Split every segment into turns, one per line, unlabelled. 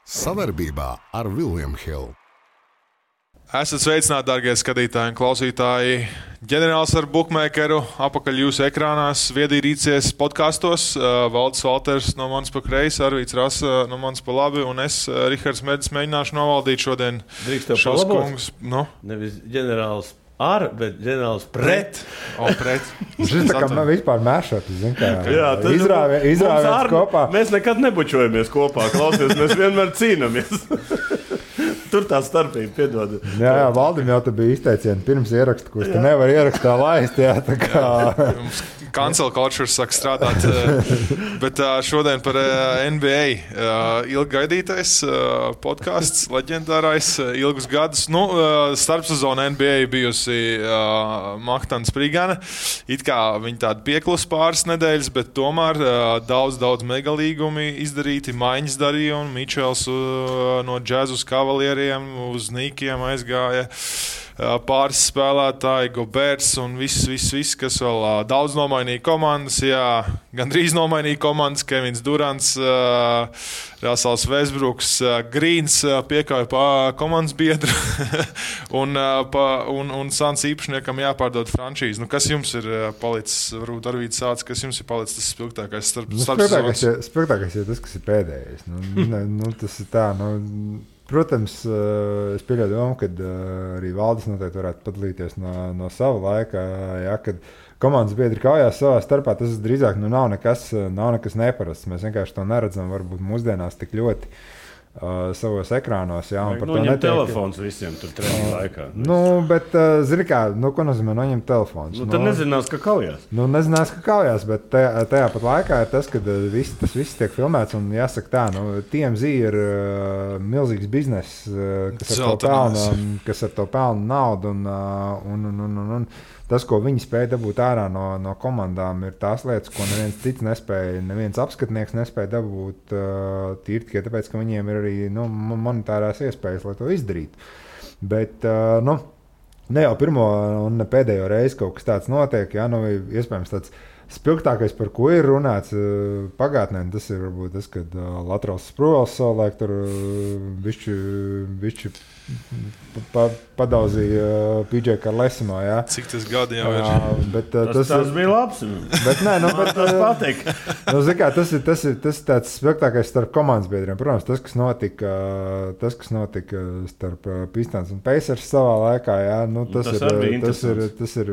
Sadarbībā ar William Hill.
Esat sveicināti, darbie skatītāji un klausītāji. Ģenerālis ar bukmēkeru apakaļ jūsu ekrānās, viedīrīcies podkastos. Valdis Valters no manis pa kreisi, Arvīts Rasa no manis pa labi, un es, Rihards Medis, mēģināšu novaldīt šodien šos kungus. Nu?
Nevis ģenerālis ar, bet ģenerālis pret.
Pret.
Šis tā kā man vispār mēšot,
Jā,
izrāviens kopā.
Mēs nekad nebučojamies kopā, klausies, mēs vienmēr cīnamies. Tur tā starpība, piedod.
Jā, Valdim jau te bija izteicieni pirms ieraksta, kurš te nevar ierakstā laist, jā, tā kā.
Cancel culture saka strādāt, bet šodien par NBA ilgi gaidītais podcasts, leģendārais, ilgus gadus. Starpsezona NBA bijusi Mahtana Sprigana. It kā viņi tādi pieklus pāris nedēļas, bet tomēr daudz megalīgumi izdarīti, maiņas darījumi. Mičels no Jazz uz Kavalieriem, uz Nīkiem aizgāja. Pāris spēlētāji, Goberts un viss, kas vēl daudz nomainīja komandas. Jā, gandrīz nomainīja komandas. Kevins Durants, Rasels Westbrooks, Grīns piekāja komandas biedru un Sans īpašniekam jāpārdod franšīzi. Kas jums ir palicis, varbūt Arvīts sāc, kas jums ir palicis tas spilgtākais starpsezonas?
Spilgtākais ir tas, kas ir pēdējais. Tas ir tā, Protams, es pieļauju domu, ka arī Valdis noteikti varētu padalīties no sava laika, kad komandas biedri kaujās savā starpā. Tas drīzāk nav nekas neparasts. Mēs vienkārši to neredzam varbūt mūsdienās tik ļoti savos ekrānos. Jā, un par to
netiek telefons visiem tur treniņu laikā.
Bet, zini kā, ko nozīmē noņemt telefons?
Tad nezinās, ka kaujās.
Nezinās, ka kaujās, bet tajā pat laikā ir tas, ka tas viss tiek filmēts un jāsaka tā, TMZ ir milzīgs bizness, kas ar to pelna naudu un tas, ko viņi spēja dabūt ārā no komandām, ir tās lietas, ko neviens cits nespēja, neviens apskatnieks nespēja dabūt tīri tikai tāpēc, ka viņiem ir arī monetārās iespējas, lai to izdarītu. Bet, ne jau pirmo un ne pēdējo reizi kaut kas tāds notiek, iespējams tāds spilgtākais, par ko ir runāts pagātnē, tas ir varbūt tas, kad Latrals Sprūvels savulaik tur bišķi padauzīja PJ Karlesimo, jā.
Cik tas gadi jau ir?
Tas
bija labs.
Bet
tas patīk.
Tas ir tāds spilgtākais starp komandas biedriem. Protams, tas, kas notika starp Pistons un Pacers savā laikā, jā, tas ir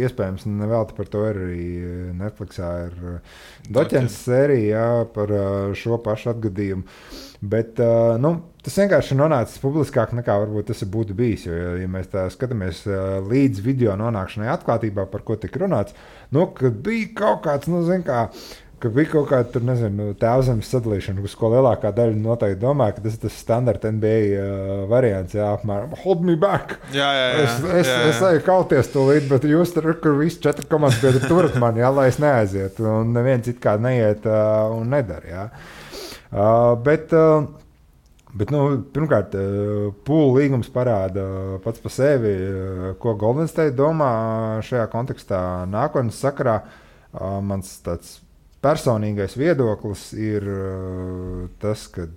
iespējams, un nevelti par to ir arī Netflixā ir Doķens sērija, jā, par šo pašu atgadījumu. Bet tas vienkārši ir nonācis publiskāk nekā varbūt tas būtu bijis. Jo, ja mēs tā skatāmies līdz video nonākšanai atklātībā, par ko tika runāts, kad bija kaut kāds, ka bija kaut kāda tēvzemes sadalīšana, uz ko lielākā daļa noteikti domā, ka tas ir tas standarta NBA variants, jā, apmēram hold me back.
Jā.
Es eju kauties tūlīt, bet jūs tur, kur visi 4 komandas biedri turat mani, jā, lai es neaizietu, un neviens it kā neiet un nedara, jā. Bet pirmkārt, pūlu līgums parāda pats par sevi, ko Golden State domā šajā kontekstā nākotnes sakarā. Mans tāds personīgais viedoklis ir tas, ka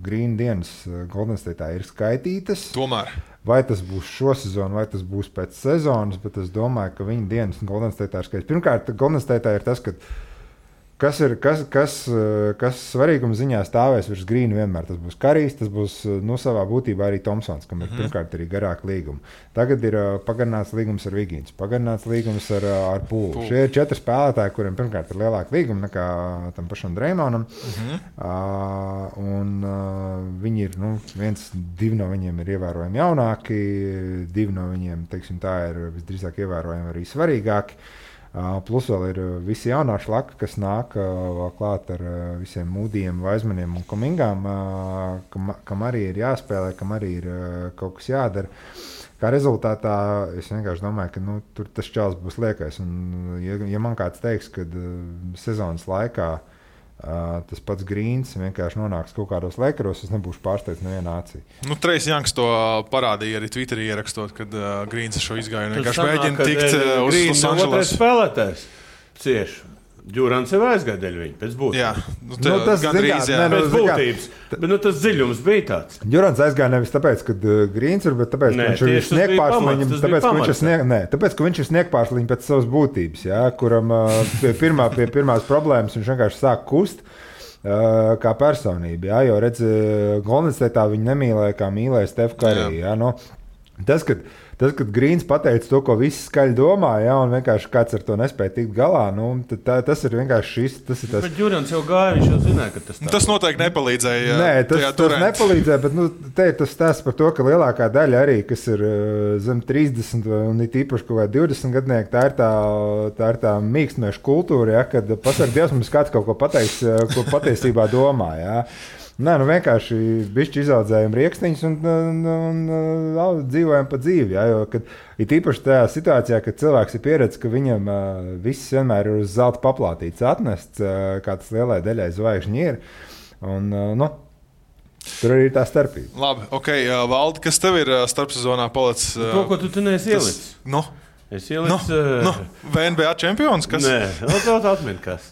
Green dienas Golden State'ā ir skaitītas.
Tomēr.
Vai tas būs šo sezonu, vai tas būs pēc sezonas, bet es domāju, ka viņa dienas Golden State'ā ir skaitītas. Pirmkārt, Golden State'ā ir tas, ka kas svarīguma ziņā stāvēs virs Grīna vienmēr. Tas būs Karijs, tas būs savā būtībā arī Tomsons, kam ir pirmkārt arī garāka līguma. Tagad ir pagarināts līgums ar Vigīns, pagarināts līgums ar Pūlu. Šie ir 4 spēlētāji, kuriem pirmkārt ir lielāka līguma nekā tam pašam Dreymonam. Viņi ir, 2 no viņiem ir ievērojami jaunāki, 2 no viņiem, teiksim tā, ir visdrīzāk ievērojami arī svarīgāki. Plus vēl ir visi jaunā šlaka, kas nāk vēl klāt ar visiem Mūdijiem, Vaizmaniem un Komingām, kam arī ir jāspēlē, kam arī ir kaut kas jādara. Kā rezultātā es vienkārši domāju, ka tur tas čels būs liekais. Un, ja man kāds teiks, ka sezonas laikā tas pats Grīns vienkārši nonāks kaut kādos Lakeros, es nebūšu pārsteigts nevienā acī.
Trejs Janks to parādīja arī Twitterī ierakstot, kad Grīns šo izgāju. Vienkārši mēģina tikt uz Los Angeles.
Spēlētājs cieši. Džurans jau aizgāja dēļ viņa, pēc būtības.
Jā, tas gandrīz, jā.
Pēc būtības, bet tas dziļums bija tāds.
Džurans aizgāja nevis tāpēc, ka Grīns ir, bet tāpēc, ka viņš ir sniegpārsliņš, tāpēc, ka viņš ir sniegpārsliņš pēc savas būtības, jā, kuram pie pirmās problēmas viņš vienkārši sāk kust kā personība, jā, jo redz, Golden State'ā viņi nemīlēja, kā mīlēja Steph Curry, jā, no. Tas, kad Grīns pateica to, ko visi skaļi domā, ja, un vienkārši kāds ar to nespēja tikt galā, nu, tas ir vienkārši šis. Tas ir tas.
Bet Džurans jau gāja, viņš jau zināja, ka tas tā.
Tas noteikti nepalīdzēja.
Nē, tas nepalīdzēja, bet te ir tas stāsts par to, ka lielākā daļa arī, kas ir zem 30 un it īpaši kaut kā 20 gadnieki, tā ir tā mīkstniešu kultūra, ja, kad pasaka, Dievs mums kāds kaut ko pateiks, ko patiesībā domā, ja. Nē, nu vienkārši bišķi izaudzējam riekstiņus un dzīvojam pa dzīvi. Ja, jo, kad, it īpaši tajā situācijā, kad cilvēks ir pieredzis, ka viņam viss vienmēr ir uz zelta paplātīts atnests, kā tas lielai daļai zvaigžņi ir. Un, nu, tur arī ir tā starpība.
Labi, ok, Valdi, kas tev ir starpsezonā palicis?
To, ko tu neesi ielicis.
Nu?
Es ielicu...
VNBA čempions, kas?
Nē, vēl atmin, kas.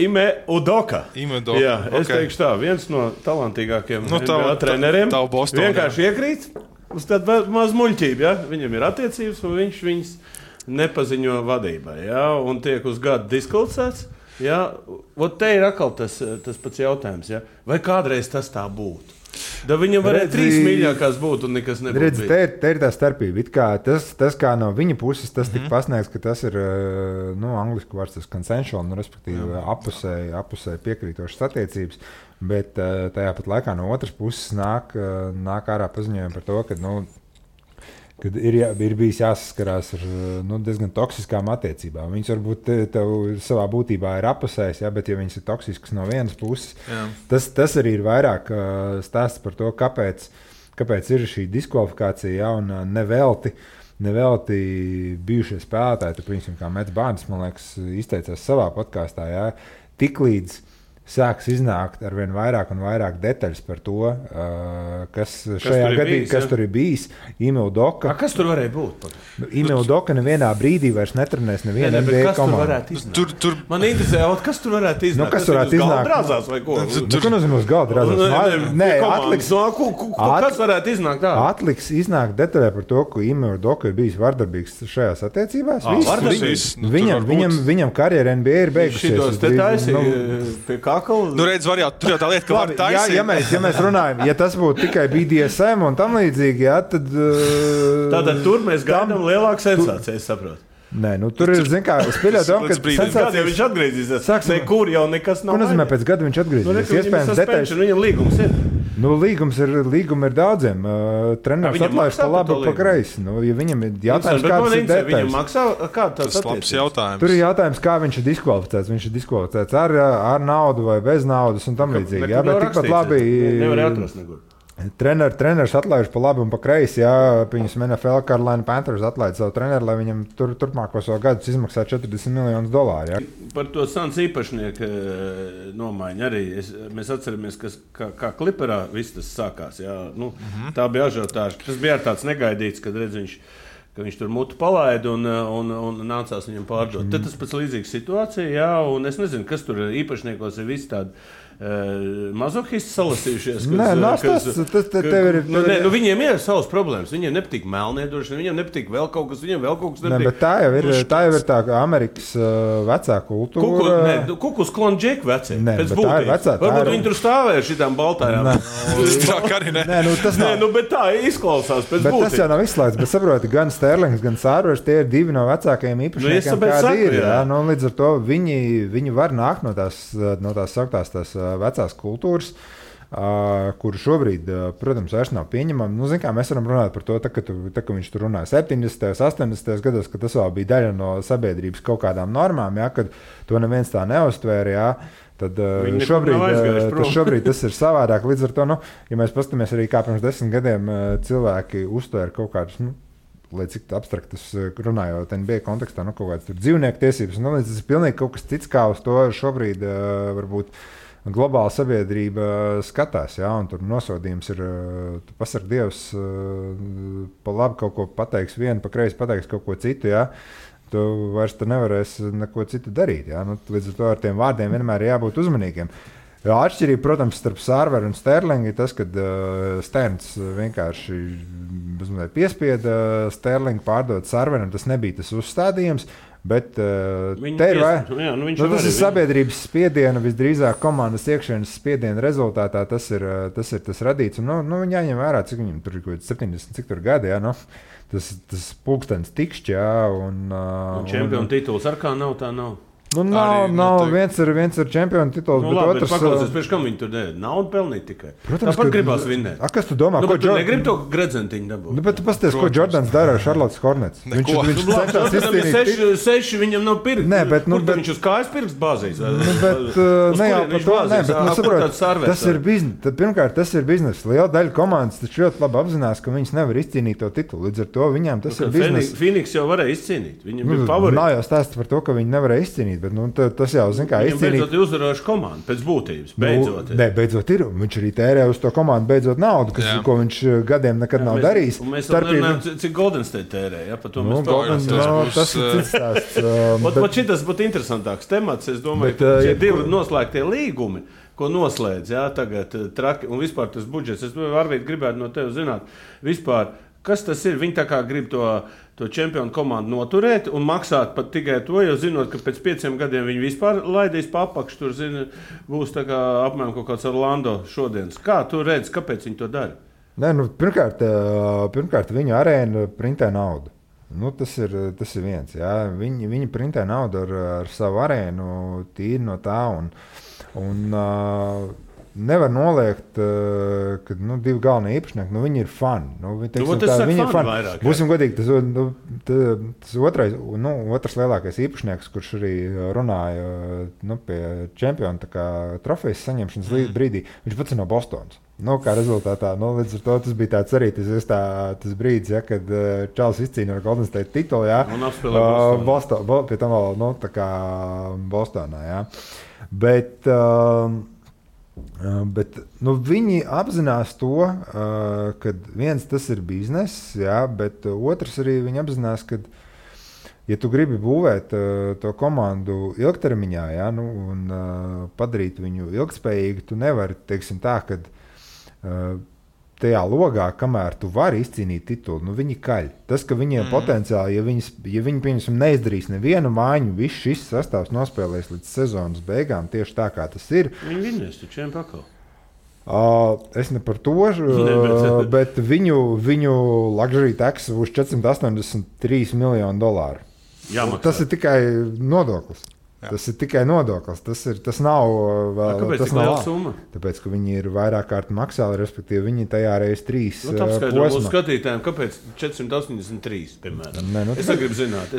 Ime Udoka. Jā, es teikšu tā, viens no talantīgākiem NBA treneriem. Vienkārši iekrīt uz tādu mazu muļķību, ja? Viņam ir attiecības, un viņš viņas nepaziņo vadībai, ja? Un tiek uz gadu diskvalificēts. Ja? Ot te ir atkal tas pats jautājums, ja? Vai kādreiz tas tā būtu? Da viņam varēja 3 mīļākās būt un nekas nebūtu.
Redz, te ir tā starpība. It kā tas kā no viņa puses tas tika pasniegts, ka tas ir, nu, angliski vārds tas consensual, nu, respektīvi apusēji piekrītošas attiecības, bet tajā pat laikā no otras puses nāk ārā paziņojumi par to, ka, nu, kad ir bijis jāsaskarās ar diezgan toksiskām attiecībām. Viņas varbūt tev savā būtībā ir apusējis, ja, bet ja viņas ir toksiskas no vienas puses, tas arī ir vairāk stāsts par to, kāpēc ir šī diskvalifikācija, ja, un nevelti bijušie spēlētāji, tu, principā, kā Mets Bārns, man liekas, izteicās savā podkāstā, ja, tiklīdz sāks iznākt ar vien vairāk un vairāk detaļas par to, kas šajā gadījumā, kas tur ir bijis. Ime Udoka.
Kas tur varēja būt?
Ime Udoka nevienā brīdī vairs netrenēs nevienu NBA komandu.
Man interesē, kas tur varētu iznākt?
Kas varētu iznākt?
Drāzās vai ko?
Ko nozīmē uz galda drāzās? Nē,
kas varētu iznākt tā?
Atliks iznākt detaļā par to, ka Ime Udoka ir bijis vardarbīgs šajās attiecībās. Viņam karjera NBA ir beigusies.
Nu, redz, tur jau tā lieta, ka var taisīt.
Ja mēs runājam, ja tas būtu tikai BDSM un tam līdzīgi, jā, tad...
Tātad tur mēs gaidām lielāku sensāciju, es saprotu.
Nē, nu tur ir, zin kā, es pieļauju domu, ka
sensācijas... Viņš atgriezīsies, nekur jau nekas nav.
Ko nozīmē pēc gada viņš atgriezīsies? Iespējams detaļas.
Viņam līgums ir.
Nu, līguma ir daudziem. Treneris atlaiž pa labi, pa kreisi. Nu, ja viņam ir jautājums, kādas ir detaļas.
Viņam maksā, kāda tas
attiecības?
Tur ir jautājums, kā viņš ir diskvalificēts. Viņš ir diskvalificēts ar naudu vai bez naudas un tam līdzīgi. Jā, bet tikpat labi...
Nevar atrast nekur.
Treneris atlaiž pa labi un pa kreisi, jā, piemēram, NFL Carolina Panthers atlaid savu treneru, lai viņam turpmākos gadus izmaksā $40 miljonus. Jā.
Par to Suns īpašnieku nomaiņu arī mēs atceramies, kā Kliperā viss tas sākās. Jā. Nu, tā bija ažiotāža. Tas bija tāds negaidīts, kad redz viņš tur mutu palaida un nācās viņam pārdot. Tad tas pēc līdzīgas situācija, jā, un es nezinu, kas tur īpašniekos ir visi tādi mazohisti salasījušies. Viņiem ir savas problēmas. Viņiem nepatīk melniedrošana, viņiem nepatīk vēl kaut kas, viņiem vēl kaut kas nepatīk.
Bet tā jau ir tā Amerikas vecā kultūra.
Kukus klonģeku vecie. Pēc būtības. Varbūt viņi tur stāvēja šitām baltājām. Bet tā izklausās pēc būtības.
Bet tas jau nav izslēgts, bet saproti, gan Sterlings, gan Sārvers, tie ir divi no vecākajiem īpašniekiem, kādi ir. Līdz ar to viņi var nākt no tās sauktās tās vecās kultūras, kuru šobrīd, protams, vairs nav pieņemama. Nu, zin kā, mēs varam runāt par to, ka viņš tur runāja 70. 80. gados, ka tas vēl bija daļa no sabiedrības kaut kādām normām, ja, kad to neviens tā neuztvēra, ja, tad šobrīd tas ir savādāk. Līdz ar to, nu, ja mēs paskatāmies arī kā pirms 10 gadiem cilvēki uztvēra kaut kādus, nu, lai cik abstraktas runājot NBA kontekstā, nu, kaut kādas tur dzīvnieku tiesības, nu, tas ir pilnīgi kaut kas cits, kā uz to šobrīd varbūt globāla sabiedrība skatās, jā, un tur nosodījums ir, tu pasarg Dievs, pa labi kaut ko pateiks vienu, pa kreisi pateiks kaut ko citu, jā. tu vairs nevarēsi neko citu darīt. Ja? Nu, līdz ar to ar tiem vārdiem vienmēr ir jābūt uzmanīgiem. Atšķirība, protams, starp Sārveru un Sterlingu ir tas, ka Sterns vienkārši piespieda Sterlingu pārdot Sārveram. Tas nebija tas uzstādījums, bet te ir tas ir sabiedrības spiediena, visdrīzāk komandas iekšienes spiediena rezultātā tas ir tas radīts. Un, viņi jāņem vērā, cik viņam tur ir 70, cik tur gadi, jā, tas pulkstenis tikšķi, jā. Un
čempionu tituls ar kā nav, tā nav.
Nav viens ir čempionu tituls, bet
labi,
otrs...
Paklausies, priekš kam viņi tur dēļ? Naudu pelnīt tikai.
Protams,
tāpat gribās vinnēt.
Kas tu domā?
Bet tu negribi to gredzentiņu dabūt?
Bet tu pasties, ko Jordans dara ar Charlottes Hornets. Viņš cenšas izcīnīt...
Seši viņam nav pirkst.
Nē, bet...
viņš uz kājas pirkst bāzīs?
Bet ne jau par to, nē, bet saprot, tas ir biznes. Pirmkārt, tas ir biznes. Liela daļa komandas taču ļoti labi apzinās, ka viņas nevar izcīnīt to titulu. Līdz ar to viņām tas ir biznes.
Phoenix jau varēja izcīnīt. Viņam bija favorīti.
Nav jau stāsts par to, ka viņi nevarēja izcīnīt, bet tas jau zin, kā izcīnīt.
Beidzot uzvarējuši komandu, pēc būtības.
Beidzot ir. Viņš arī tērē uz to komandu beidzot naudu, ko viņš gadiem nekad nav darījis.
Mēs runājam, cik Golden State tērē. Ja? Par to mēs
tas ir cits stāsts.
Šitas būtu interesantāks temats. Es domāju, ka šie divi noslēgtie līgumi, ko noslēdz, jā, tagad traki, un vispār tas budžets. Es varbūt gribētu no tevi zināt, vispār, kas tas ir? Viņi tā kā grib to čempionu komandu noturēt un maksāt pat tikai to, jo zinot, ka pēc 5 gadiem viņi vispār laidīs pa apakšu, tur būs tā kā apmēram kaut kāds Orlando šodienas. Kā tu redzi, kāpēc viņi to dara?
Nē, pirmkārt viņu arēna printē naudu. Tas ir viens. Jā. Viņi printē naudu ar savu arēnu tīri no tā un nevar noliegt, ka divi galvenie īpašnieki, viņi ir fani. Viņi ir fani. Vairāk, būsim godīgi, tas otrs lielākais īpašnieks, kurš arī runāja pie čempiona trofejas saņemšanas brīdī, viņš pats ir no Bostonas. Kā rezultātā, līdz ar to tas bija tāds arī tas brīdis, ja, kad Čāls izcīna ar Golden State titulu, jā,
un apspēlē
Bostonā. Pie tam vēl, tā kā Bostonā, jā. Bet viņi apzinās to, ka viens tas ir bizness, jā, bet otrs arī viņi apzinās, ka, ja tu gribi būvēt to komandu ilgtermiņā, jā, un padarīt viņu ilgtspējīgu, tu nevari, teiksim tā, ka tajā logā, kamēr tu vari izcīnīt titulu, viņi kaļ. Tas, ka viņiem potenciāli, ja viņi pieņemsim, neizdarīs nevienu mājiņu, viss šis sastāvs nospēlēs līdz sezonas beigām, tieši tā, kā tas ir.
Viņi vinnēs taču čiem pakal.
Es ne par to, bet viņu luxury tax būs $483 miljoni.
Jāmaksā.
Tas ir tikai nodoklis. Jā. Tas ir tikai nodoklis. Tas nav vēl.
Kāpēc
tas
tik liela summa?
Tāpēc, ka viņi ir vairāk kārt maksāli, respektīvi viņi tajā reiz 3
posmā. Mūsu skatītājiem, kāpēc 483, piemēram? Es negribu zināt.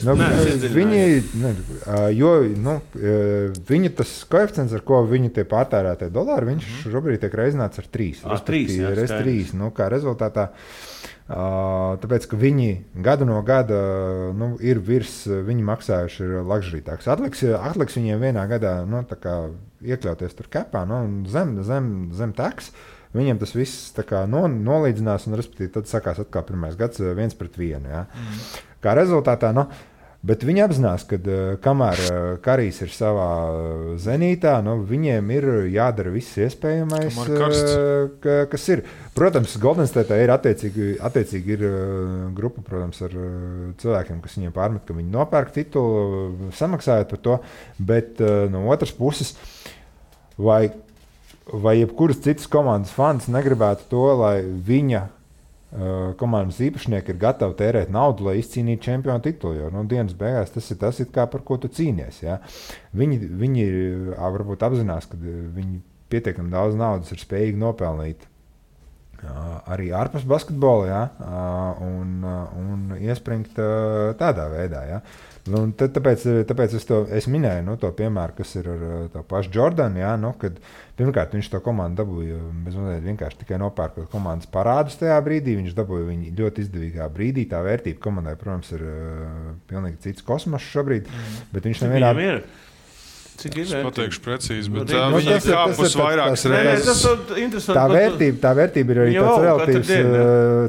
Viņi
tas koeficients, ar ko viņi tie pārtērētie dolāri, viņš šobrīd tiek reizināts ar 3.
Reiz 3.
Kā rezultātā. Tāpēc, ka viņi gadu no gada ir viņi maksājuši ir luxury tax. Atliks viņiem vienā gadā iekļauties tur kapā zem tax. Viņiem tas viss nolīdzinās un, respektīvi, tad sakās atkal pirmais gads 1-1. Ja? Kā rezultātā, bet viņi apzinās, ka kamēr Karijs ir savā zenītā, viņiem ir jādara viss iespējamais, kas ir. Protams, Golden State ir attiecīgi ir grupa, protams, ar cilvēkiem, kas viņiem pārmet, ka viņi nopērk titulu, samaksājot par to, bet no otras puses, vai jebkuras citas komandas fans negribētu to, lai viņa komandas īpašnieki ir gatavi tērēt naudu, lai izcīnītu čempionu titulu. Jo dienas beigās tas ir kā par ko tu cīnies. Ja? Viņi varbūt apzinās, ka viņi pietiekami daudz naudas ir spējīgi nopelnīt arī ārpus basketbola, ja? Un iespringt tādā veidā. Ja? Tāpēc es minēju to piemēru, kas ir ar to pašu Jordanu, ja? Kad pirmkārt viņš to komandu dabūja vienkārši tikai nopērkot komandas parādus tajā brīdī, viņš dabūja viņu ļoti izdevīgā brīdī, tā vērtība komandai, protams, ir pilnīgi cits kosmos šobrīd, bet viņš nevienā...
Cik ir
vērtība? Es pateikšu precīzi, bet viņi ir kāpus vairākas
reizes. Tā vērtība ir arī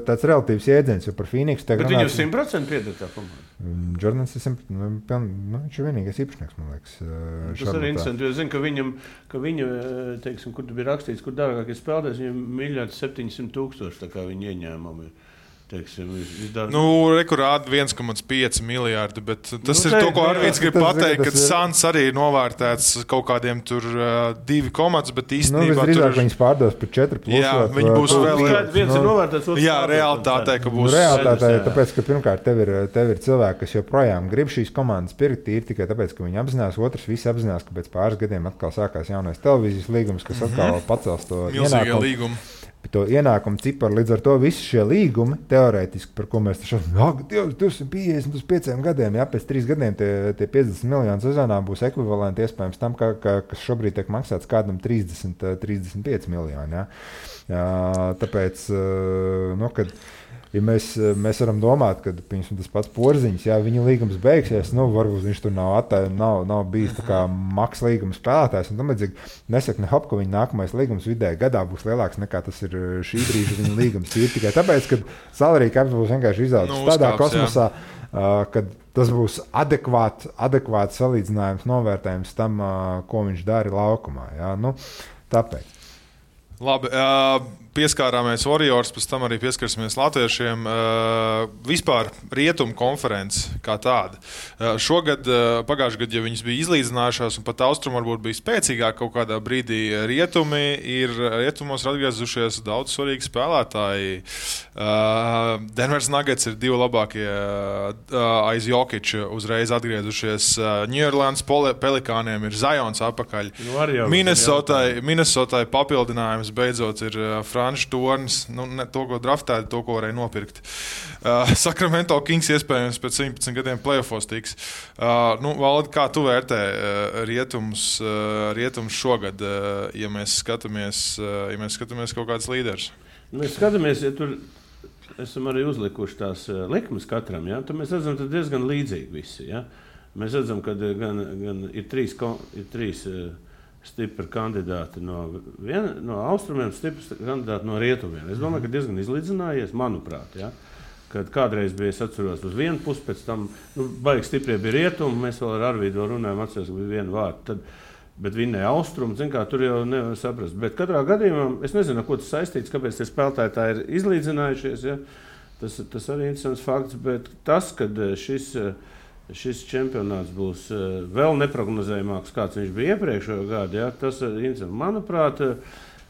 tāds relatīvs jēdziens, jo par Phoenixu
tagad runāt. Bet viņu 100% pieder tā komanda.
Jordans ir viņš ir vienīgais īpašnieks, man liekas.
Tas arī interesanti, jo es zinu, ka viņu, teiksim, kur bija rakstīts, kur dārgākie spēlētājs, viņam 1,700,000, tā kā viņa ieņēmumi ir. Teiksim,
rekurādi 1,5 miljārdi, bet tas ir to, ko Arvīds grib pateikt, ka Suns arī ir novērtēts kaut kādiem tur 2 komats, bet īstenībā
tur viņas pārdos par 4 plus.
Jā, viņi būs vēl
viens ir novērtēts, otrs.
Jā, realitātē, ka būs.
Realitātē, tāpēc, ka pirmkārt tev ir cilvēki, kas joprojām grib šīs komandas pirkt, ir tikai tāpēc, ka viņi apzinās, otrs visi apzinās, ka pēc pāris gadiem atkal sākās jaunais televīzijas līgums, kas atkal pacels to ienākumu. To ienākumu ciparu, līdz ar to visi šie līgumi, teorētiski, par ko mēs taču 250 uz 5 gadiem, pēc 3 gadiem tie 50 miljoni sezonā būs ekvivalenti iespējams tam, kas šobrīd tiek maksāts kādam 35 miljoni. Tāpēc, kad ja mēs varam domāt, ka tas pats Porziņš, viņa līgums beigsies, varbūt viņš tur nav bijis tā kā maks līguma spēlētājs. Un tam līdzīgi nesaka ne hop, ka viņa nākamais līgums vidēji gadā būs lielāks nekā tas ir šī brīža viņa līgums. Ir tikai tāpēc, ka salary cap būs vienkārši izaudzis tādā kosmosā, kad tas būs adekvāts salīdzinājums, novērtējums tam, ko viņš dara laukumā. Tāpēc.
Labi, pieskārāmies Warriors, pēc tam arī pieskarsimies latviešiem. Vispār rietumu konferences kā tāda. Šogad, pagājušajā gadā, ja viņas bija izlīdzinājušās un pat austrumu varbūt bija spēcīgāk kaut kādā brīdī, rietumos ir atgriezušies daudz svarīgi spēlētāji. Denvers Nuggets ir 2 labākie aiz Jokića uzreiz atgriezušies. New Orleans Pelikāniem ir Zions apakaļ. Minnesotai papildinājums beidzot ir Frančs Tornis, to, ko draftēja, to, ko varēja nopirkt. Sacramento Kings iespējams pēc 17 gadiem playoffos tiks. Valdi, kā tu vērtē rietums šogad, ja mēs skatāmies kaut kāds līderis?
Mēs skatāmies, ja tur esam arī uzlikuši tās likmes katram, ja? Tad mēs redzam, ka diezgan līdzīgi visi. Ja? Mēs redzam, ka gan ir trīs stipri kandidāti no austrumiem, stipri kandidāti no rietumiem. Es domāju, ka diezgan izlīdzinājies, manuprāt. Ja? Kad kādreiz bija, es atceros, uz vienu pusi, pēc tam baigi stiprie bija rietumi, mēs vēl ar Arvīdu runājam, atceros, ka bija viena vārta, bet vinnēja austrumu, tur jau nevar saprast. Bet katrā gadījumā, es nezinu, ko tas saistīts, kāpēc tie spēlētāji tā ir izlīdzinājušies, ja? Tas arī interesants fakts, bet tas, kad šis čempionāts būs vēl neprognozējamāks, kāds viņš bija iepriekšējo gadu. Ja? Tas ir interesanti.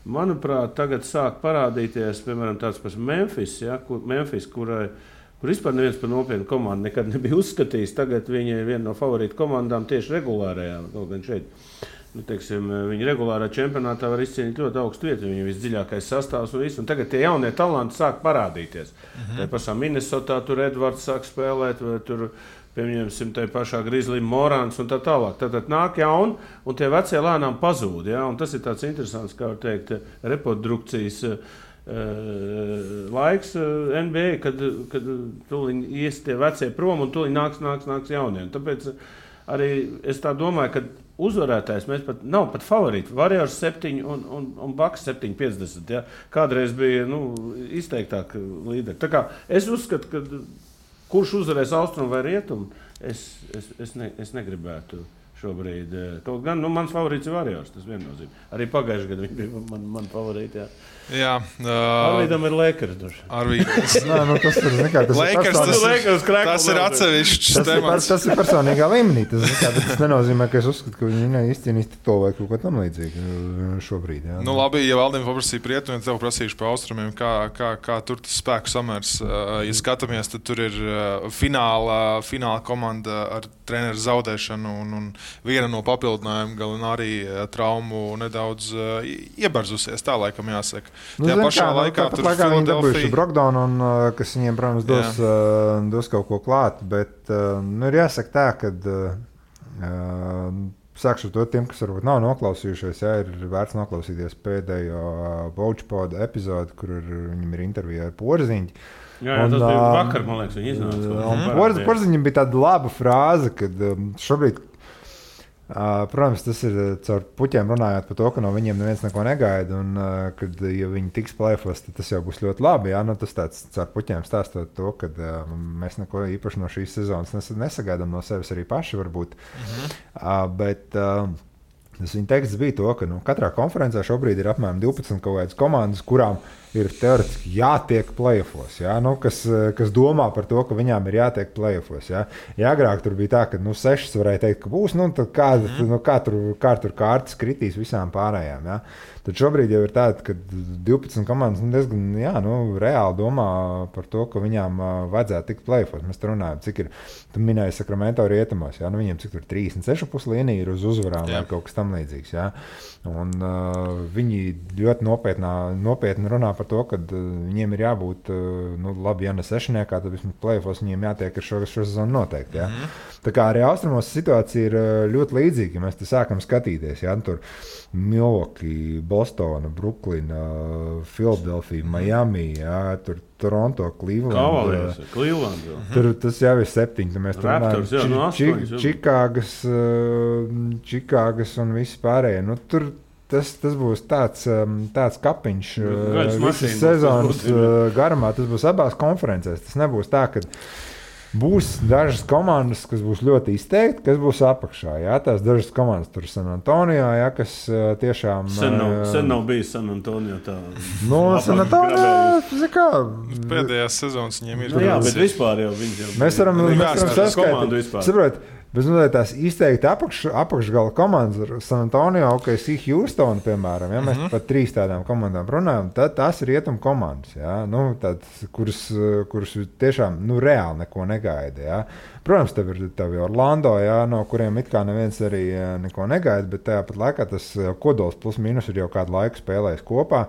Manuprāt, tagad sāk parādīties, piemēram, tāds pats Memphis, ja? Kur vispār neviens par nopietnu komandu nekad nebija uzskatījis. Tagad viņi ir viena no favorītu komandām tieši regulārajā. Kaut gan šeit, viņi regulārā čempionātā var izcīnīt ļoti augstu vietu. Viņi ir visdziļākais sastāvs un viss. Un tagad tie jaunie talanti sāk parādīties. Tā pašā Minnesotā tur Edvards sāk spēlēt, vai tur pieņemsim tai pašā Grizzly Morans un tā tālāk. Tad nāk jauni, un tie vecie lēnām pazūd. Ja? Un tas ir tāds interesants, kā var teikt, reprodukcijas laiks NBA, kad tuliņ ies tie vecie prom un tuliņ nāks jaunie. Tāpēc arī es tā domāju, ka uzvarētājs nav pat favorīti. Warriors 7 un Bucks 7,50. Ja? Kādreiz bija izteiktāk līderi. Tā kā es uzskatu, ka kurš uzvarēs austrumu vai rietumu, es negribētu šobrīd. Kaut gan mans favorīts ir Warriors, tas viennozīmē. Arī pagājušajā gadā viņi bija man favorīti. Jā. Arvīdam ir Lakers.
Tas ir atsevišķs temats.
Tas ir personīgā līmenī. Tas nenozīmē, ka es uzskatu, ka viņi neizcīnīs titulu vai kaut ko tam līdzīgu šobrīd. Jā.
Labi, ja Valdim paprasīja par rietumiem, tev prasīšu par austrumiem, kā tur tas spēku samērs. Ja skatāmies, tad tur ir fināla komanda ar treneru zaudēšanu un viena no papildinājuma Gallinari traumu nedaudz iebarzusies, tā laikam jāsaka. Tajā pašā laikā tur
viņi dabūjuši Brogdonu, kas viņiem, protams, dos kaut ko klāt, bet ir jāsaka tā, ka sākšu to tiem, kas varbūt nav noklausījušies, ir vērts noklausīties pēdējo Vouchpoda epizodi, kur viņam ir intervija ar Porziņu.
Jā, tas bija vakar, man liekas, viņi iznāca.
Porziņam bija tāda laba frāze, kad šobrīd Protams, tas ir caur puķiem runājot par to, ka no viņiem neviens neko negaida, un kad ja viņi tiks play-offos, tad tas jau būs ļoti labi. Jā, nu, tas tāds caur puķiem stāstot to, ka mēs neko īpaši no šīs sezonas nesagaidām no sevis arī paši varbūt. Bet tas viņa teksts bija to, ka katrā konferencē šobrīd ir apmēram 12 kaut kādas komandas, kurām ir teoretiski jātiek play-offos, jā? Kas domā par to, ka viņām ir jātiek play-offos. Jā? Ja agrāk tur bija tā, ka 6 varēja teikt, ka būs, tad kā tur kārtas kritīs visām pārējām. Jā? Tad šobrīd jau ir tāda, ka 12 komandas diezgan reāli domā par to, ka viņām vajadzētu tikt play-offos. Mēs te runājam, cik ir, tu minēji Sacramento rietumos, jā? Viņiem cik tur 36,5 līnija ir uz uzvarām vai kaut kas tam līdzīgs. Jā? Un viņi ļoti nopietni runā par to, ka viņiem ir jābūt, labi, ja ne sešniekā, tad vismaz play-offos viņiem jātiek ar šo sezonu noteikti. Jā? Tā kā arī austrumos situācija ir ļoti līdzīga, ja mēs te sākam skatīties. Jā? Tur Milwaukee, Bostona, Bruklina, Philadelphia, Miami, jā? Tur Toronto, Cleveland. Tur tas jau ir 7. Mēs tur runājam Čikāgas un visi pārējie. Tur tas būs tāds kapiņš visas sezonas garumā. Tas būs abās konferencēs. Tas nebūs tā, ka būs dažas komandas, kas būs ļoti izteikti, kas būs apakšā. Jā, tās dažas komandas tur San Antonio, jā, kas tiešām...
Sen nav bijis San Antonio tā...
San Antonio, kā...
Pēdējās sezonas viņiem ir...
Jā, bet vispār jau viņi jau...
Mēs varam saskaitīt. Saprot, bet tās izteikti apakšgala komandas ar San Antonio, OKC, Houston, piemēram, ja mēs par 3 tādām komandām runājam, tad tās ir rietumu komandas, ja? Kuras tiešām reāli neko negaida. Ja? Protams, tev ir Orlando, ja? No kuriem it kā neviens arī neko negaida, bet tāpat laikā tas kodols plus mīnus ir jau kādu laiku spēlējis kopā.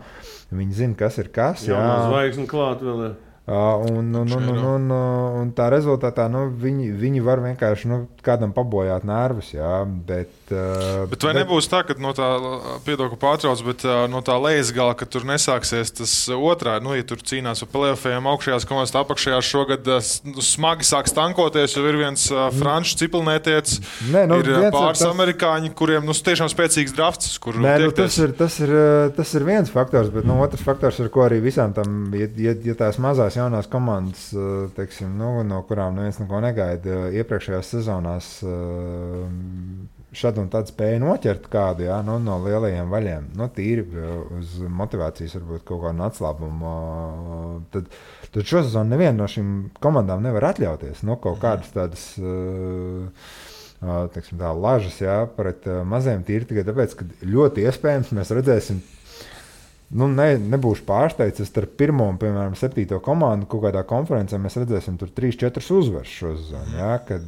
Viņi zina, kas ir kas.
Jā, zvaigzne klāt vēl ir.
Un tā rezultātā viņi var vienkārši kādam pabojāt nervus, jā, bet
vai nebūs tā, ka no tā, piedod, ka pārtrauc, bet no tā lejas gala, ka tur nesāksies tas otrā, ja tur cīnās par play-offiem augšējās komandas, apakšējās šogad smagi sāks tankoties, jo ir viens franču ciplnētietis, ir pāris amerikāņi, kuriem tiešām spēcīgs drafts, kur
tiekties. Tas ir viens faktors, bet otrs faktors, ar ko arī visām tam, ja tās mazās jaunās komandas, teiksim, no kurām neviens neko negaida, iepriekšējās sezonās šad un tad spēja noķert kādu, jā, no lielajiem vaļiem, tīri uz motivācijas varbūt kaut kādu atslābumu. Tad šo sezonu neviena no šīm komandām nevar atļauties, kaut kādas tādas teiksim, tā lažas, jā, pret maziem tīri tikai tāpēc, ka ļoti iespējams mēs redzēsim. Nebūšu pārsteigts, starp 1. un, piemēram, 7. komandu kaut kādā konferencē mēs redzēsim tur 3-4 uzvaras šo sezonu. Jā, kad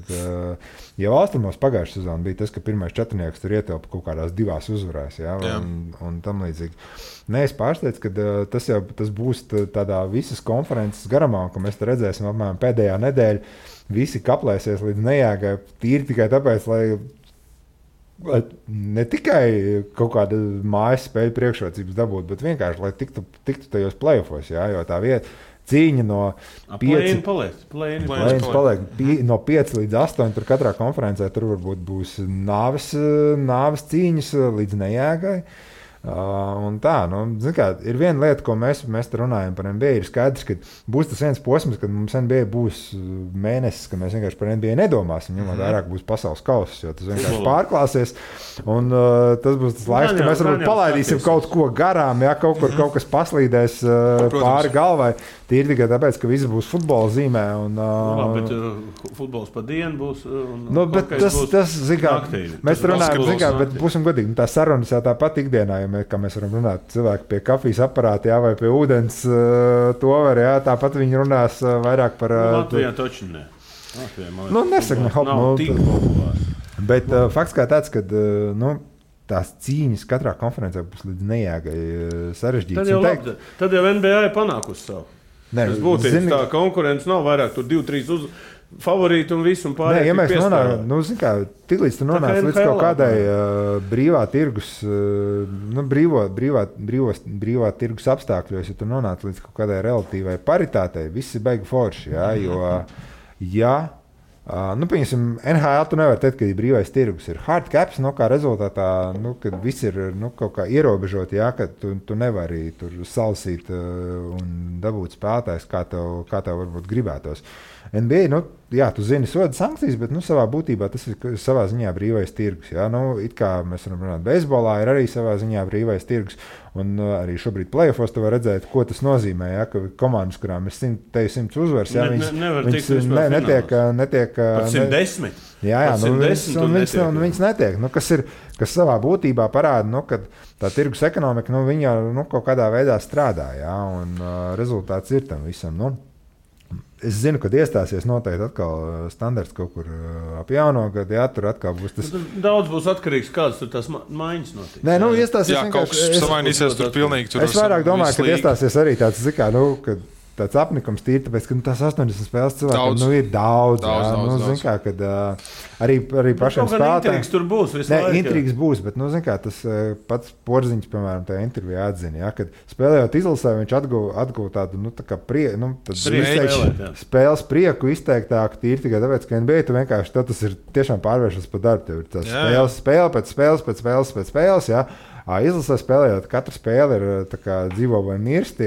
jau austrumos pagājušā sezona bija tas, ka pirmais 4 tur ietilpa kaut kādās 2 uzvarās, jā, un tam līdzīgi. Es pārsteidzu, ka tas būs tādā visas konferences garumā, ka mēs te redzēsim apmēram pēdējā nedēļa, visi kaplēsies līdz nejāgai tīri tikai tāpēc, lai ne tikai kaut kāda mājas spēļu priekšrocības dabūt, bet vienkārši, lai tiktu tajos play-offos, jā, jo tā vieta cīņa no 5 no 5 līdz 8, tur katrā konferencē tur varbūt būs nāves cīņas līdz nejāgai. Un tā, ir viena lieta, ko mēs te runājam par NBA, ir skaidrs, ka būs tas viens posms, kad mums NBA būs mēnesis, ka mēs vienkārši par NBA nedomāsim, ņemot vairāk būs pasaules kauss, jo tas vienkārši pārklāsies, un tas būs tas laiks, ka mēs varbūt palaidīsim kaut ko garām, ja kaut kas paslīdēs pāri galvai, tīri tikai tāpēc, ka viss būs futbola zīmē.
Bet futbols pa dienu būs,
bet tas mēs runājam, bet būsim godīgi, tā sarunas jau tāpat ikdienā, kā mēs varam runāt, cilvēki pie kafijas aparāta, jā, vai pie ūdens to var, jā, tāpat viņi runās vairāk par...
Latvijā toči ne.
Nesaka,
nav tik populārs.
Bet fakts kā tāds, ka, tās cīņas katrā konferencē būs līdz nejāgai sarežģītas.
Tad jau NBA ir panākusi savu. Tas būtības tā konkurence nav vairāk, tur 2-3 favorīti un visu un pārējie.
Ja mēs nonākam, tiklīdz tu nonāc līdz kaut kādai brīvā tirgus, brīvā tirgus apstākļos, ja tu nonāc līdz kaut kādai relatīvai paritātei, viss ir baigi forši, jā, jo, ja Piemēram, NHL tu nevar teikt, ka ir brīvais tirgus. Ir hard caps, kā rezultātā, kad viss ir kaut kā ierobežot, jā, ka tu nevari tur salasīt un dabūt spēlētājs, kā tev varbūt gribētos. NBA, jā, tu zini soda sankcijas, bet savā būtībā tas ir savā ziņā brīvais tirgus. Jā. It kā mēs varam runāt, beisbolā ir arī savā ziņā brīvais tirgus. Un arī šobrīd playoffos tu var redzēt, ko tas nozīmē, ja, ka komandas, kurām ir 100 uzvaras, ja, netiek
pat 110.
Jā, viņas netiek. Kas savā būtībā parāda, ka tā tirgus ekonomika, viņa kaut kādā veidā strādā, ja, un rezultāts ir tam visam. Es zinu, kad iestāsies noteikti atkal standarts kaut kur ap jauno gadu, jā, tur atkal būs tas.
Daudz būs atkarīgs, kādas tur tās maiņas notiks.
Nē, iestāsies
jā, kaut kas samainīsies tur pilnīgi. Tur
es vairāk domāju, ka iestāsies arī tāds, kad tāds apnikums tīri, tāpēc, ka tās 80 spēles cilvēkiem ir daudz. Kad arī pašiem spēlētājiem.
Intrigas tur būs visu laiku.
Intrigas būs, bet, tas pats Porziņš, piemēram, tajā intervijā atzina, ja, kad spēlējot izlasē, viņš atguva tādu, tā kā spēles prieku izteiktāku tīri tikai tāpēc, ka NBA tu vienkārši tas ir tiešām pārvēršas par darbu. Tev ir tas spēle pēc spēles, jā. Izlasē spēlējot, katra spēle ir dzīvo vai mirst.